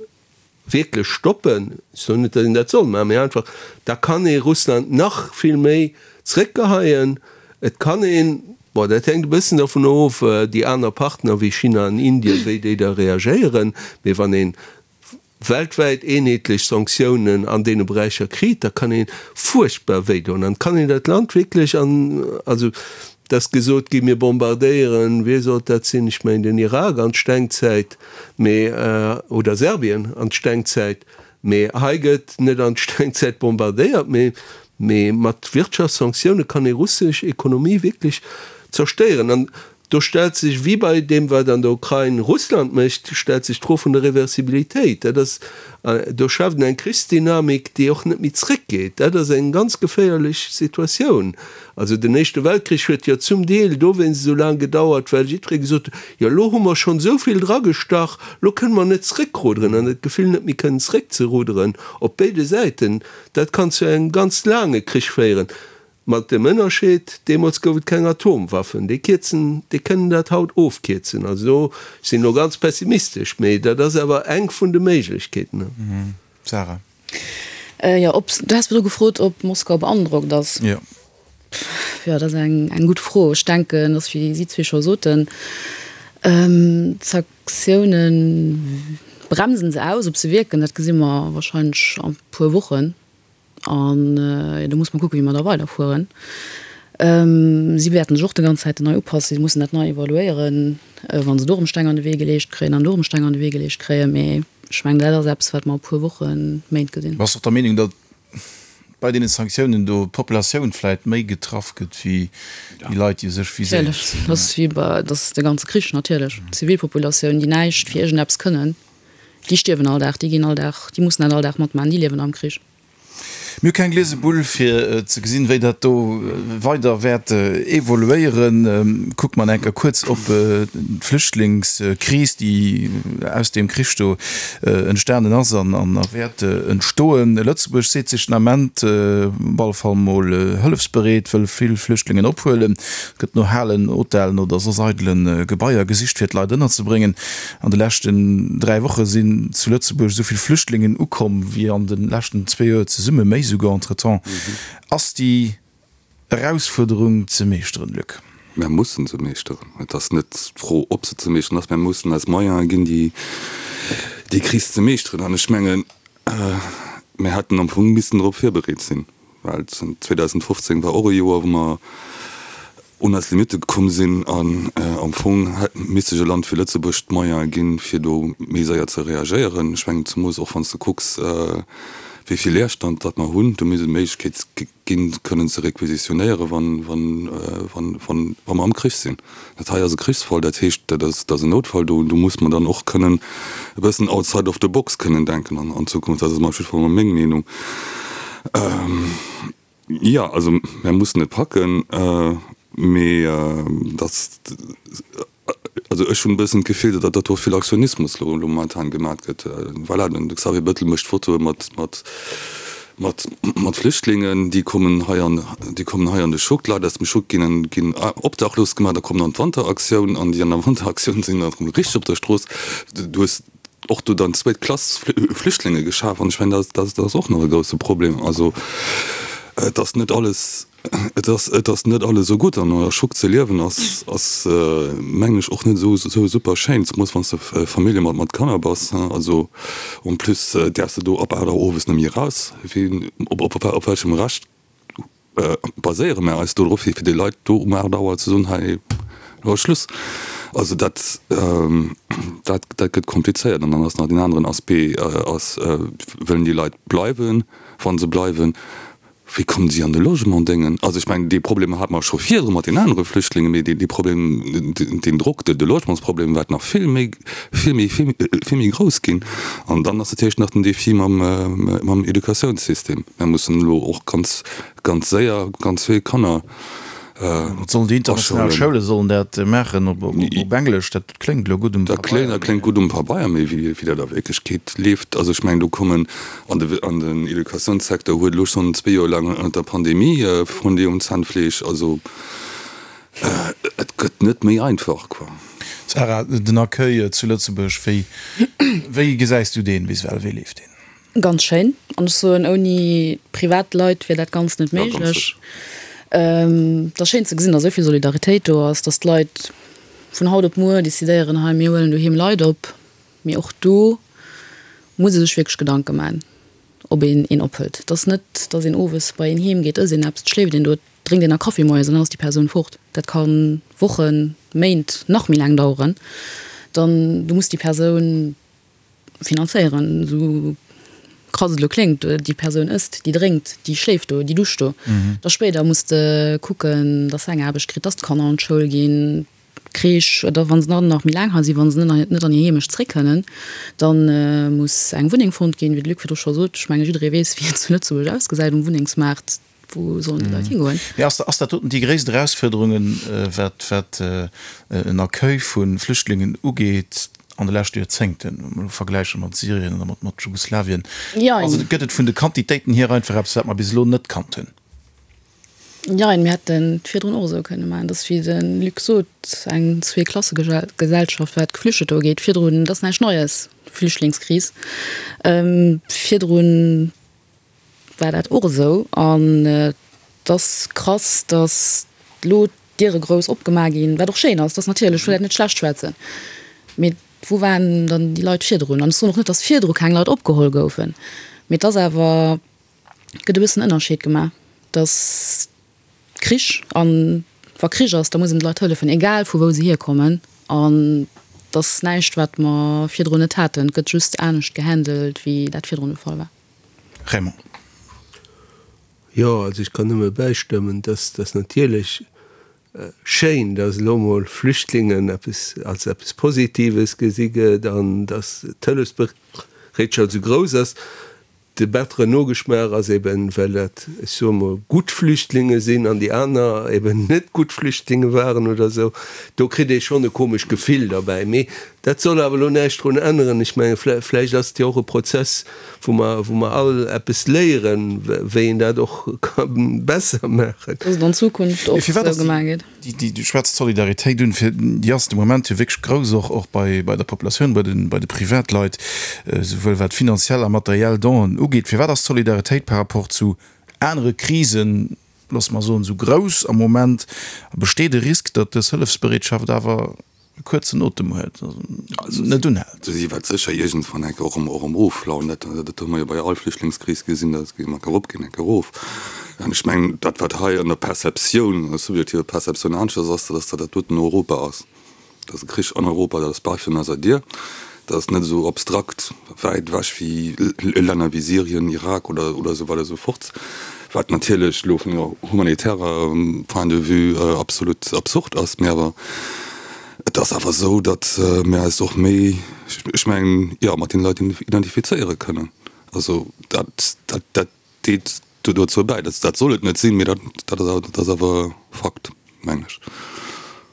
wierklech stoppen, ech soen net, datt een dat soll maachen, mee einfach, da kann ee Russland nach vill méi zréckgeheien. Et kann een, bon, dat hänkt e bëssen dovun of, déi aner Partner wéi China an Indien, wéi déi da reagéieren, mee wann ee weltwäit eenheetlech Sanktiounen an deene Beräicher kritt, da kann ee fuerchtbar wéidoen an kann een dat Land wierklech an, also Et ass gesot ginn, mir bombardéieren, wie sollt dat sinn, ech mengen den Irak an d'Stengzäit, mee, oder Serbien an d'Stengzäit, mee hei gëtt net an d'Stengzäit bombardéiert, mee, mee mat Wirtschaftssanktioune kann ee russesch Ekonomie wierklech zerstéieren. An do stellt sech, wéi bei deem wat an der Ukrain Russland mécht, stellt sech d'Fro vun der Reversibilitéit. Dat ass, do schaaft een eng Krichsdynamik, déi och net méi zréckgeet. Dat ass eng ganz geféierlech Situatioun. Also den Éischte Weltkrich huet jo zum Deel dowéinst esou laang gedauert, well jiddweree gesot huet, jo elo hu mer schonn esou vill dragestach, elo kënne mer net zréckruderen. An dat Gefill net méi kënnen zréckzerudderen op béide Säiten, dat kann zu engem ganz laange Krich féieren. Mat dem Ënnerscheed, deemools gouf et keng Atomwaffen. Déi kierzen, déi kënnen dat haut ofkierzen. Also do, ech sinn elo ganz pessimistesch, mee dat ass awer eng vun de Méiglechkeeten. Sarah. Jo, ob, du has virdru gefrot, ob Moskau beandrockt ass. Jo. Jo, dat ass eng, eng gutt Fro. Ech denken, dass, wéi si zwee scho soten, d'Sanktioune. bremsen se aus. Ob se wierken, dat gesi mer wahrscheinlech a puer Wochen. An do muss mer kucken, wéi mer da weiderfueren. Si wäerten sech och de ganz Zäiten nei upassen. Si mussen dat nei evaluéieren, wa se do erëm Steng an de Wee geleecht kréien an do erëm Steng an de Wee geleecht kréien. Mee ech mengen, dat ass eppes, wat mer a puer Wochen, Méint gesinn. Bass och der Meenung, datt bei deene Sanktiounen do d'Populatioun vläit méi getraff gëtt wéi déi Leit, déi u sech viséiert sinn? Natierlech. Dat ass wéi bei, dat ass de ganze Krich natierlech. D'Zivilpopulatioun, déi näischt fir iergendeppes kënnen. Déi stierwen all Dag, déi ginn all Dag, déi mussen dat all Dag matmaachen, déi liewen am Krich. Mir hu keng gliese Bull fir ze gesinn, wéi dat do weider wäert evoluéieren. Kucke mer enker kuerz op d'Flüchtlingskris, déi aus deem Krich do entstanen ass an wäert entstoen. Lëtzebuerg seet sech den Ament op alle Fall mol hëllefsbereet, wëll vill Flüchtlingen ophuelen. Et gëtt no Halen, Hotellen oder soss eidele Gebaier gesicht, fir d'Leit ënnerzebréngen. An de leschten 3 Woche sinn zu Lëtzebuerg esou vill Flüchtlingen ukomm wéi an de leschten zwee Joer zesumme, méi souguer entretemps. Ass déi Erausfuerderung ze meeschteren, Luc? Mär mussen se meeschteren. Et ass net d'Fro, ob se ze meeschteren ass. Mär mussen eis Moyene ginn, déi Kris ze meeschteren. An ech mengen, mär hätten am Fong missen drop virbereet sinn. Well 2015 war och e Joer, wou mer un eis Limitte gekomm sinn an am Fong hätt misst sech e Land wéi Lëtzebuerg d'Moyene ginn, fir do méi séier ze reagéieren. Ech mengen, zemoos och wann s de kucks, wéi vill Leerstand datt mer hunn, do misst et d'Méiglechkeet ginn, kënnen ze requisitionéieren, wann mer am Krich sinn. Dat hei ass e Krichsfall, dat heescht, dat ass, dat ass en Noutfall. Do, do muss mer dann och kënnen e bëssen outside of the box kënnen denken an, an Zukunft. Dat ass op jidde Fall mol meng Meenung. Jo, also mär mussen et packen, mee dass, also ech hunn e bëssen d'Gefill, datt dat do vill Aktionismus elo momentan gemat gëtt. Voilà, den Xavier Bettel mécht Fotoe mat, mat, Mat mat Flüchtlingen, déi kommen hei an, déi kommen hei an de Schuck. D'Leit aus dem Schuck ginn ginn obdachlos gemaach. Da kommt dann d'Wanteraktioun an déi an der Wanteraktioun sinn dann erëm richteg op der Strooss. Du hues och do dann zweet Klass Flüchtlinge geschaf an ech mengen, dat dat ass och nach e grousse Problem. Also et ass net alles. Et ass, et ass net alles esou gutt an an der Schuck ze liewen ass, ass mengen ech och net esou, esou super schéin, zemoos wann s de Famillje mat, mat Kanner bass. Also en plus däerfs de do ab 8 Auer owes net méi eraus. Wéi, op, op, op welchem Recht baséiere mär eis do drop, fir fir de Leit do um 8 Auer ze soen, hei elo ass Schluss? Also dat, dat, dat gëtt komplizéiert. An dann ass nach deen aneren Aspect ass, wëllen déi Leit bleiwen? Wa se bleiwen, Wéi kommen si an de Logement déngen? Also ech mengen, dee Problem hate mer scho virdru mat den anere Flüchtlingen, mee dee Problem, deen Drock, de Logementsproblem wäert nach vill méi, vill méi, vill méi grouss ginn. An dann ass natierlech nach den Défi mam, mam Educatiounssystem. Mir mussen elo och ganz, ganz séier ganz vill Kanner Wat sollen déi international Schoule sollen dat maachen op Englesch? Dat kléngt elo gutt um Pabeier. Dat kléngt gutt um Pabeier, mee wéi dat a Wierklechkeet leeft, also ech mengen do kommen an de an den Educatiounssecteur huet elo schonn zwee Joer laang ënnert der Pandemie Frondé um Zahnfleesch. Also et gëtt net méi einfach quoi. Sarah, den Accueil zu Lëtzebuerg, wéi wéi gesäis du deen bis ewell? Wéi leeft deen? Ganz schéin. An ech soen, ouni Privatleit wier dat Ganzt net méiglech. Et ass schéin ze gesinn, datt esou vill Solidaritéit do ass, datt d'Leit vun haut op muer decidéieren, hei mir huelen doheem Leit op. Mee och do muss ee sech wierklech Gedanke maachen, ob een een ophëlt. Et ass net, datt een owes bei een heem geet, ësst een eppes, et schléift een do, et drénkt een e Kaffi moies an dann ass déi Persoun fort. Dat ka Wochen, Méint, nach méi laang daueren. Dann, du muss déi Persoun finanzéieren, esou krass et elo kléngt, déi Persoun ësst, déi drénkt, déi schléift do, déi duscht do. Da spéider muss de kucken, dass se eng Aarbecht kritt, dass d'Kanner an d'Schoul ginn, d'Crèche, oder wa se dann nach méi laang hei sinn, wa se net an hir Heemecht zréck kënnen, da muss eng Wunneng fonnt ginn, wéi de Luc virdru scho sot. Ech menge jidderee weess, wéi et zu Lëtzebuerg ausgesäit um Wunnengsmaart. Wou sollen déi Leit higoen? Mee ass ass dat doten déi gréisst Erausfuerderungen, wat wat en Accueil vu Flüchtlingen ugeet an de leschte Joerzéngten, wa mer elo vergläiche mat Syrien oder mat mat Jugoslawien? Jein. Also gëtt et vun de Quantitéiten hier einfach eppes, wat mer bis elo net kannt hunn? Jein, mir hätten et virdrun och esou kënne maachen. Et ass, wéi de Luc sot, eng Zweeklassegesellschaft, wat Geflüchteter ugeet. Virdrun, et ass näischt Neies, d'Flüchtlingskris. Virdrun war dat och esou an et ass krass, datt elo d'Diere grouss opgemaach ginn, wat och schéin ass, dat ass natierlech, ech wëll dat net schlecht schwätzen, mee. Wou waren dann déi Leit virdrun? An ech soen och net, datt virdru keng Leit opgeholl goufen, mee et ass awer, et gëtt e bëssen Ënnerscheed gemaach, datt Krich, an wa Krich ass, da muss een de Leit hëllefen, egal vu wou se hierkommen. An et ass näischt, wat mer virdrun net haten, et gëtt just anescht gehandelt, wéi dat virdrun de Fall war. Raymond. Jo, also ech kann nëmme bäistëmmen, dass dass natierlech schéin, dass elo mol Flüchtlingen eppes als eppes Positives gesi gëtt an dass d'Hëllefsbereetschaft esou grouss ass. De batteren Nogeschmaach ass eben, well dat, ech soe mol, gutt Flüchtlinge sinn an déi aner eben net gutt Flüchtlinge waren oder esou. Do kritt ee schonn e komescht Gefill derbäi. Mee dat soll awer elo näischt drun änneren. Ech menge vläicht ass et jo och e Prozess, wou mer, wou mer all eppes léieren, wéi een dat och ka besser maachen. Dass et an Zukunft och esou gemaach gétt. Déi, du schwätz d'Solidaritéit un, fir déi ass de Moment jo wierklech grouss, och och bei bei der Populatioun, bei den bei de Privatleit, souwuel wat finanziell a materiell Donen ugeet. Firwat ass d'Solidaritéit par rapport zu anere Krisen, loosse mer soen, esou grouss am Moment? A besteet e Risk, datt dës Hëllefsbereetschaft awer e kuerzen Otem huet, also net unhält. Si wäert sécher iergendwann enke och erëm offlauen. Dat hu mer jo bei all Flüchtlingskris gesinn, dat geet eng Kéier erop, geet eng Kéier erof. An ech mengen, dat wat hei an der Perceptioun, an der subjektiver Perceptioun aneschters ass, dat ass, datt dat doten Europa ass. Dat ass e Krich an Europa, dat ass bei virun eiser Dier. Dat ass net esou abstrakt wäit ewech wéi Länner wéi Syrien, Irak oder esou weider esou fort, wat natierlech elo vun enger humanitärer Point de vue absolut absurd ass. Mee awer et ass awer esou, datt mir eis och méi, ech mengen, jo, mat deene Leit identifizéiere kënnen. Also dat, dat deet dozou bäi. Dat soll et net sinn, mee dat ass awer Fakt, mengen ech.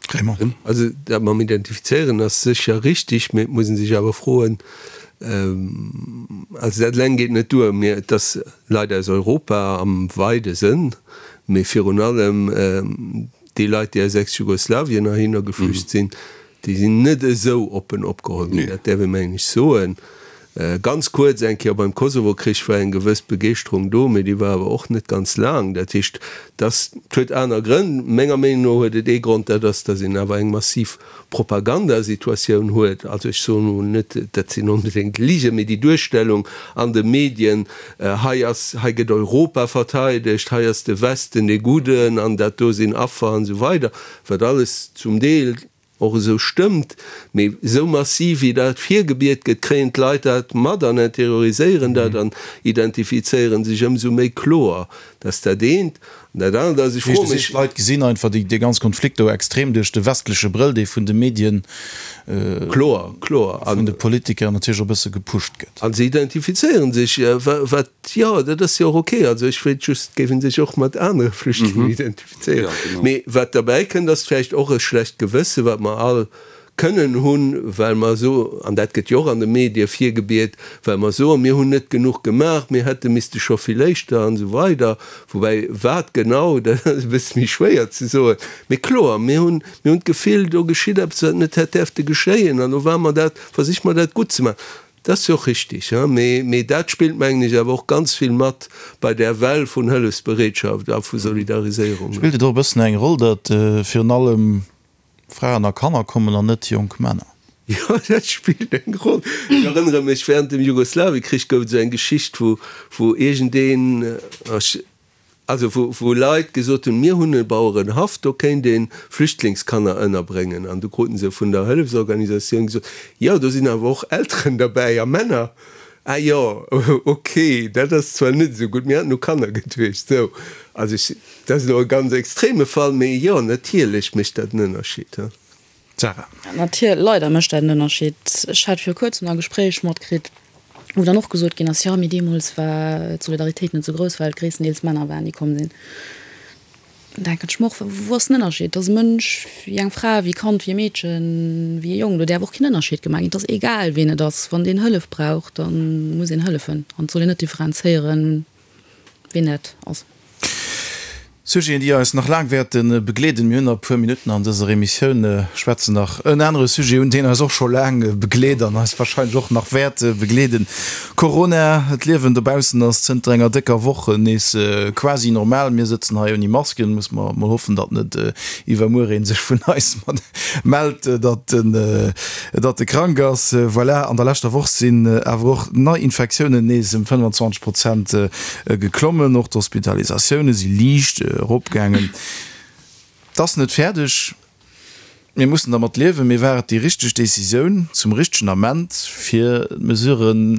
Raymond. Also dat mam Identifizéieren ass sécher richtig, mee et muss ee sech awer froen, also dat eleng geet net duer, mee et ass Leit aus Europa am weide Sënn, mee virun allem déi Leit, déi aus Ex-Jugoslawien heihinner geflücht sinn, Déi sinn net esou oppen opgeholl ginn, dat däerf ee mengen ech soen. Ganz kuerz eng Kéier beim Kosovo-Krich war eng gewëss Begeeschterung do, mee déi war awer och net ganz laang. Dat heescht, dass, et huet aner Grënn. Menger Meenung no huet et ee Grond, dat ass, dass een awer eng massiv Propagandasituatioun huet. Also ech soen elo net, dat sinn onbedéngt Ligen, mee déi Duerstellung an de Medien, hei ass, hei gëtt Europa verteidegt, hei ass de Westen dee Gudden an dat do sinn Affer an esou weider, wat alles zum Deel och esou stëmmt, mee esou massiv wéi dat virgebiet gëtt, kréien d'Leit dat mat an interioriséieren dat an identifizéieren sech ëmsou méi kloer. Dat ass dat eent. An dat anert ass, ech froe mech. D'Leit gesinn einfach dee ganz Konflikt do extrem duerch de westleche Brëll, dee vun de Medien, Kloer, kloer. vun de Politiker natierlech och e bësse gepusht gëtt. A se identifizéieren sech, wat, jo, dat ass jo och ok. Also ech wéilt just, géife sech och mat anere Flüchtlingen identifizéieren. Mee wat derbäi kënnt, ass vläicht och e schlecht Gewësse, wat mer all kënnen hunn, well mer so, an dat gëtt jo och an de Medie virgebiet, well mer soen, mir hunn net genuch gemaach, mir hätte misste scho vill éischter an esou weider. Woubäi wat genau, dat ass e bësse méi schwéier ze soen. Mee kloer, mir hunn, mir hunn d'Gefill, do geschitt eppes, wat net hätt däerfte geschéien an elo ware mer dat, versiche mer dat gutt ze maachen. Dat ass jo och richtig, mee dat spillt, mengen ech, awer och ganz vill mat bei där Well vun Hëllefsbereetschaft a vu Solidariséierung. Spillt et och e bëssen eng Roll, datt virun allem Fraen a Kanner kommen an net jonk Männer? Jo, dat spillt eng Roll. Ech erënnere mech, während dem Jugoslawiekrich gouf et esou eng Geschicht, wou wou iergendeen, ech, Also wou wou Leit gesot hunn, mir hunn e Bauerenhaff, do kéint ee Flüchtlingskanner ënnerbréngen. An du kruten se vun der Hëllefsorganisatioun gesot, jo do sinn awer och Elteren derbäi a Männer. Ah jo, ok, dat ass zwar net esou gutt, mir haten u Kanner geduecht. Sou, also ech, dat ass elo e ganz extreme Fall, mee jo, natierlech mécht dat en Ënnerscheed. Sarah. Natier, leider mécht dat en Ënnerscheed. Ech hat viru kuerzem e Gespréich matkritt, wou dann och gesot ginn ass, jo, mee deemools war d'Solidaritéit net esou grouss, well et gréisstendeels Männer waren, déi komm sinn. Dann denken ech mer och, wou ass den Ënnerscheed? Et ass e Mënsch wéi eng Fra, wéi e Kand, wéi e Meedchen, wéi e Jong. Do däerf och keen Ënnerscheed gemaach ginn. Et ass egal, ween et ass. Wann deen Hëllef brauch, da muss een hëllefen an et soll een net differenzéieren, ween dat ass. Sujeten, déi eis nach laang wäerte begleeden. Mir hunn nach e puer Minutten an dëser Emissioun, schwätzen nach en anere Sujet un, deen eis och scho laang begleet an eis wahrscheinlech och nach wäert begleeden, Corona. D'Liewen dobaussen ass zënter enger décker Woch nees quasi normal. Mir sëtzen hei ouni Masken. Muss mer mol hoffen, datt net iwwermuer ee sech vun eis mellt, datt en datt e krank ass. Voilà, an der leschter Woch sinn awer och d'Neiinfektiounen nees ëm 25 Prozent Geklommen. Och d'Hospitalisatioune si liicht eropgaangen. Et ass net fäerdeg, mir mussen dermat liewen. Mee war et déi richteg Decisioun zum richtegen Ament, fir d'Mesuren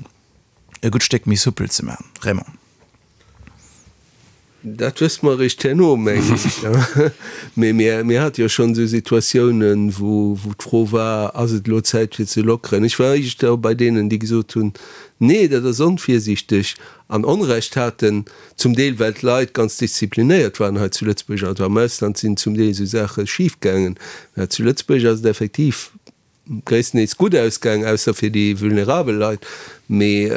e gutt Stéck méi soupel ze maachen? Raymond. Dat wësse mer eréischt herno, mengen ech. Mee mir hate jo schonn esou Situatiounen, wou d'Fro war, Ass et elo Zäit fir ze lockeren? Ech war éischter bei deenen, déi gesot hunn, Nee, dat ass onvirsiichteg. An Onrecht haten, zum Deel well d'Leit ganz disziplinéiert waren hei zu Lëtzebuerg, also am Ausland sinn zum Deel esou Saache schif gaangen, mä zu Lëtzebuerg ass et effektiv gréisstendeels gutt ausgaangen, ausser fir déi vulnerabel Leit. Mee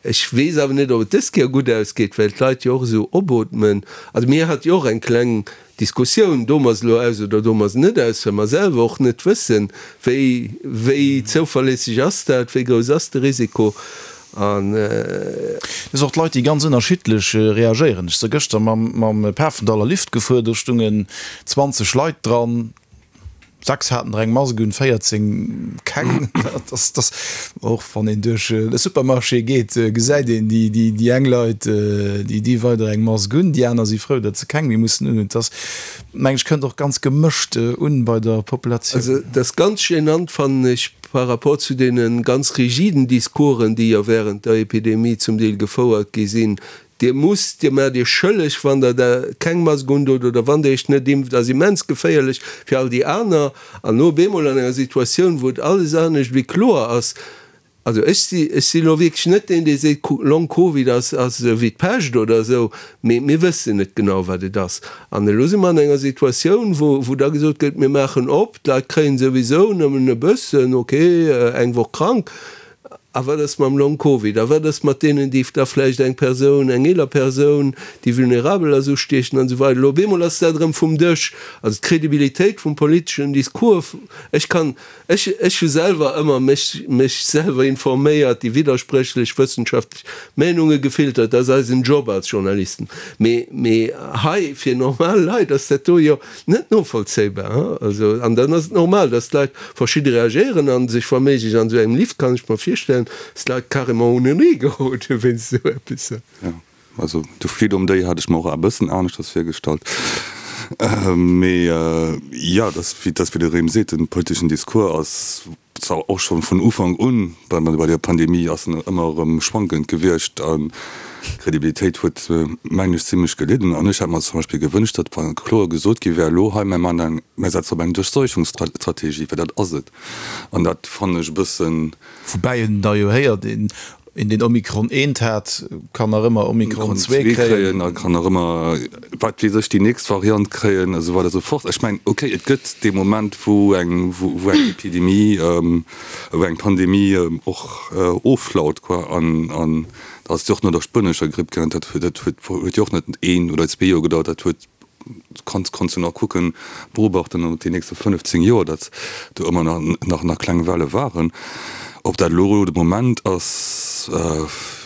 ech weess awer net, ob et dës Kéier gutt ausgeet, well d'Leit jo och esou opootmen. Also mir hate jo och eng kleng Diskussioun, doe mer se elo aus oder doe mer se net aus, well mer selwer och net wëssen, wéi, wéi zouverléisseg ass dat, wéi grouss ass de Risiko. An. Et ass och d'Leit, déi ganz ënnerschiddlech reagéieren. Ech si gëschter mam, mam Pafendaller Lift gefuer, do stungen 20 Leit dran, 6 haten der eng Mask un, 14 keng. Dat ass, dat ass, och wann een duerch e Supermarché geet, gesäit een déi, déi, déi eng Leit, déi di weider eng Mask un, déi aner si frou, datt se keng méi mussen unhunn. Dat ass, meng ech, kënnt och ganz gemëscht un bei der Populatioun. Also dat ass ganz gênant, fannen ech, par rapport zu deene ganz rigiden Discoursen, déi jo während der Epidemie zum Deel gefouert gi sinn, Dir musst, Dir maacht Iech schëlleg, wann Der da keng Mask undot oder wann Der Iech net impft, ass immens geféierlech fir all déi aner. An elo op eemol an enger Situatioun, wou et alles anescht wéi kloer ass, also ech si, ech si elo wierklech net deen, dee seet, Long Covid ass, ass esou wéi d'Pescht oder esou, mee mir wëssen net genau, wat et ass. An elo si mer an enger Situatioun, wou, wou da gesot gëtt, mir maachen op, d'Leit kréien souwisou nëmmen e bëssen, okay, eng Woch krank. A wat ass mam Long Covid? A wat ass mat deenen, déi da vläicht eng Persoun, eng eeler Persoun, déi vulnerabel ass, ustiechen an esou weider? Elo op eemol ass dat erëm vum Dësch. Also d'Credibilitéit vum politeschen Discours, ech kann, ech, ech hu selwer ëmmer mech, mech selwer informéiert, déi widderspréchlech wëssenschaftlech Meenunge gefiltert, dat ass eisen Job als Journalisten. Mee, mee hei fir normal Leit ass dat do jo net novollzéibar. Also, an dann ass et normal, dass d'Leit verschidde reagéieren a sech wa méiglech an esou engem Lift, kann ech mer virstellen, dass d'Leit carrément unenee geroden wéinst esou eppes. Jo, also de Freedom Day hat ech mer och e bëssen aneschters virgestallt. Mee jo, dass, wéi de Rem seet, den politeschen Discours ass zwar och schonn vun Ufank un bei bei der Pandemie ass en ëmmer erëm schwankend gewiescht an d'Credibilitéit huet mengen ech zimlech gelidden. An ech hätt mer zum Beispill gewënscht, datt wa kloer gesot gi wär, elo hei, mir maachen eng, mir setzen op eng Durchseuchungsstrategie, well dat ass et. An dat fannen ech e bëssen. Woubäi een da jo héiert, een Een deen Omikron eent hat, kann nach ëmmer Omikron zwee kréien. A kann nach ëmmer, wat weess ech, déi nächst Variant kréien, esou weider esou fort. Ech mengen, okay, et gëtt dee Moment, wou eng, wou eng Epidemie, wou eng Pandemie och offlaut, quoi. An, an da ass et jo och no der spuenescher Gripp gaangen. Dat huet, dat huet, huet jo och net een oder zwee Joer gedauert, dat huet Kanns kanns du nach kucken, beobachten op déi nächste 15 Joer, datt do ëmmer nach nach kleng Welle waren. Ob dat elo de Moment ass,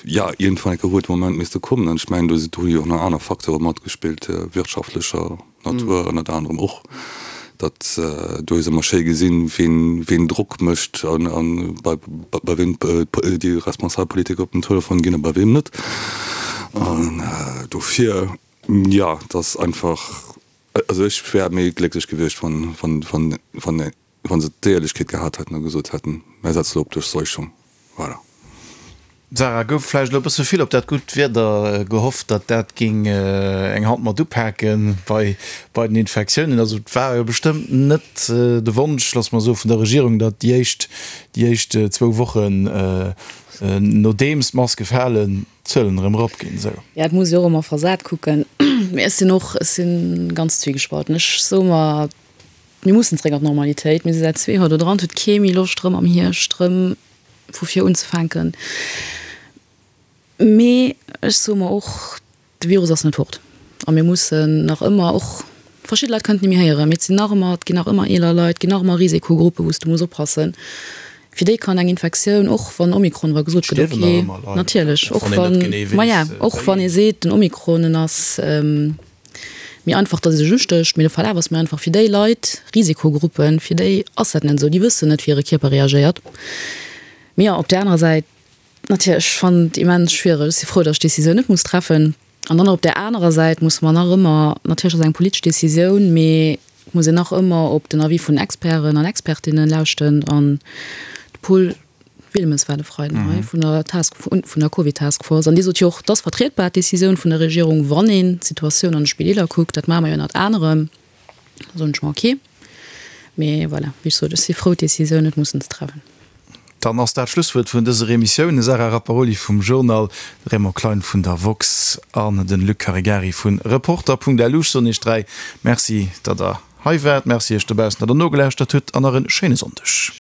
jo, iergendwann eng Kéier huet de Moment misste kommen. An ech mengen, do do hu jo och nach aner Facteure matgespillt, wirtschaftlecher Natur ënnert anerem och, datt do hues ëmmer schéi gesinn, ween ween Drock mécht an an bei bei weem déi responsabel Politiker op den Telefon ginn a bei weem net. An dofir. Jo, et ass einfach, also ech wär méi glécklech gewiescht, wann, wann, wann, wann, wann se d'Éierlechkeet gehat hätten a gesot hätten, Mär setzen elo op Duerchseuchung. Voilà. Sarah, gouf vläicht elo e bësse vill op dat gutt Wieder gehofft, datt dat géing eng Hand mat upake bei, bei den Infektiounen? Also et war jo bestëmmt net de Wonsch, loosse mer soen, vun der Regierung, datt déi éischt, déi éischt zwou Wochen, nodeems d'Maske falen, d'Zuelen erëm erop ginn esou. Ja, et muss ee och ëmmer versat kucken. Mee ech sinn och, ech si ganz zwiegespalten. Ech soe mer, mir mussen zréck an d'Normalitéit. Mir si säit zwee Joer do dran. Et huet kee méi Loscht erëm am Hierscht erëm vu vir unzefänken. Mee ech soe mer och, de Virus ass net fort. A mir mussen nach ëmmer och, verschidde Leit kënnen et net méi héieren, mee et sinn nach ëmmer, et ginn nach ëmmer eeler Leit, et ginn nach ëmmer Risikogruppen, wou s de muss oppassen. Fir déi kann eng Infektioun, och wann Omikron, wa gesot gëtt, ok, natierlech, och wann, maja, och wann ee seet, den Omikron, en ass méi einfach, datt e sech ustécht, mee de Verlaf ass méi einfach. Fir déi Leit, Risikogruppen, fir déi ass dat net esou, déi wëssen net, wéi hire Kierper reagéiert. Mee jo, op där anerer Säit, natierlech, ech fannen et immens schwiereg. Ech si frou, datt ech d'Decisioun net muss treffen. An dann op där anerer Säit musse mer nach ëmmer, natierlech ass et eng politesch Decisioun, mee et muss een nach ëmmer op den Avis vun Experten an Expertinnen lauschten. An de Paul Wilmes war de Freiden hei vun der Task, vun der Covid-Taskforce an dee sot jo och, et ass vertrietbar, d'Decisioun vun der Regierung, wann een d'Situatioun an de Spideeler kuckt. Dat maache mer jo ënnert anerem. Da soen ech mer, ok. Mee voilà, wéi ech sot, ech si frou, d'Decisioun net mussen ze treffen. Dann ass dat d'Schlusswuert vun dëser Emissioun. De Sarah Rapparoli vum Journal, de Raymond Klein vun der woxx an de Luc Caregari vu Reporter.lu. Ech soen Iech 3 Merci, datt Der hei waart. Merci Iech dobaussen, datt Der nogelauschtert hutt an nach e schéine Sonndeg.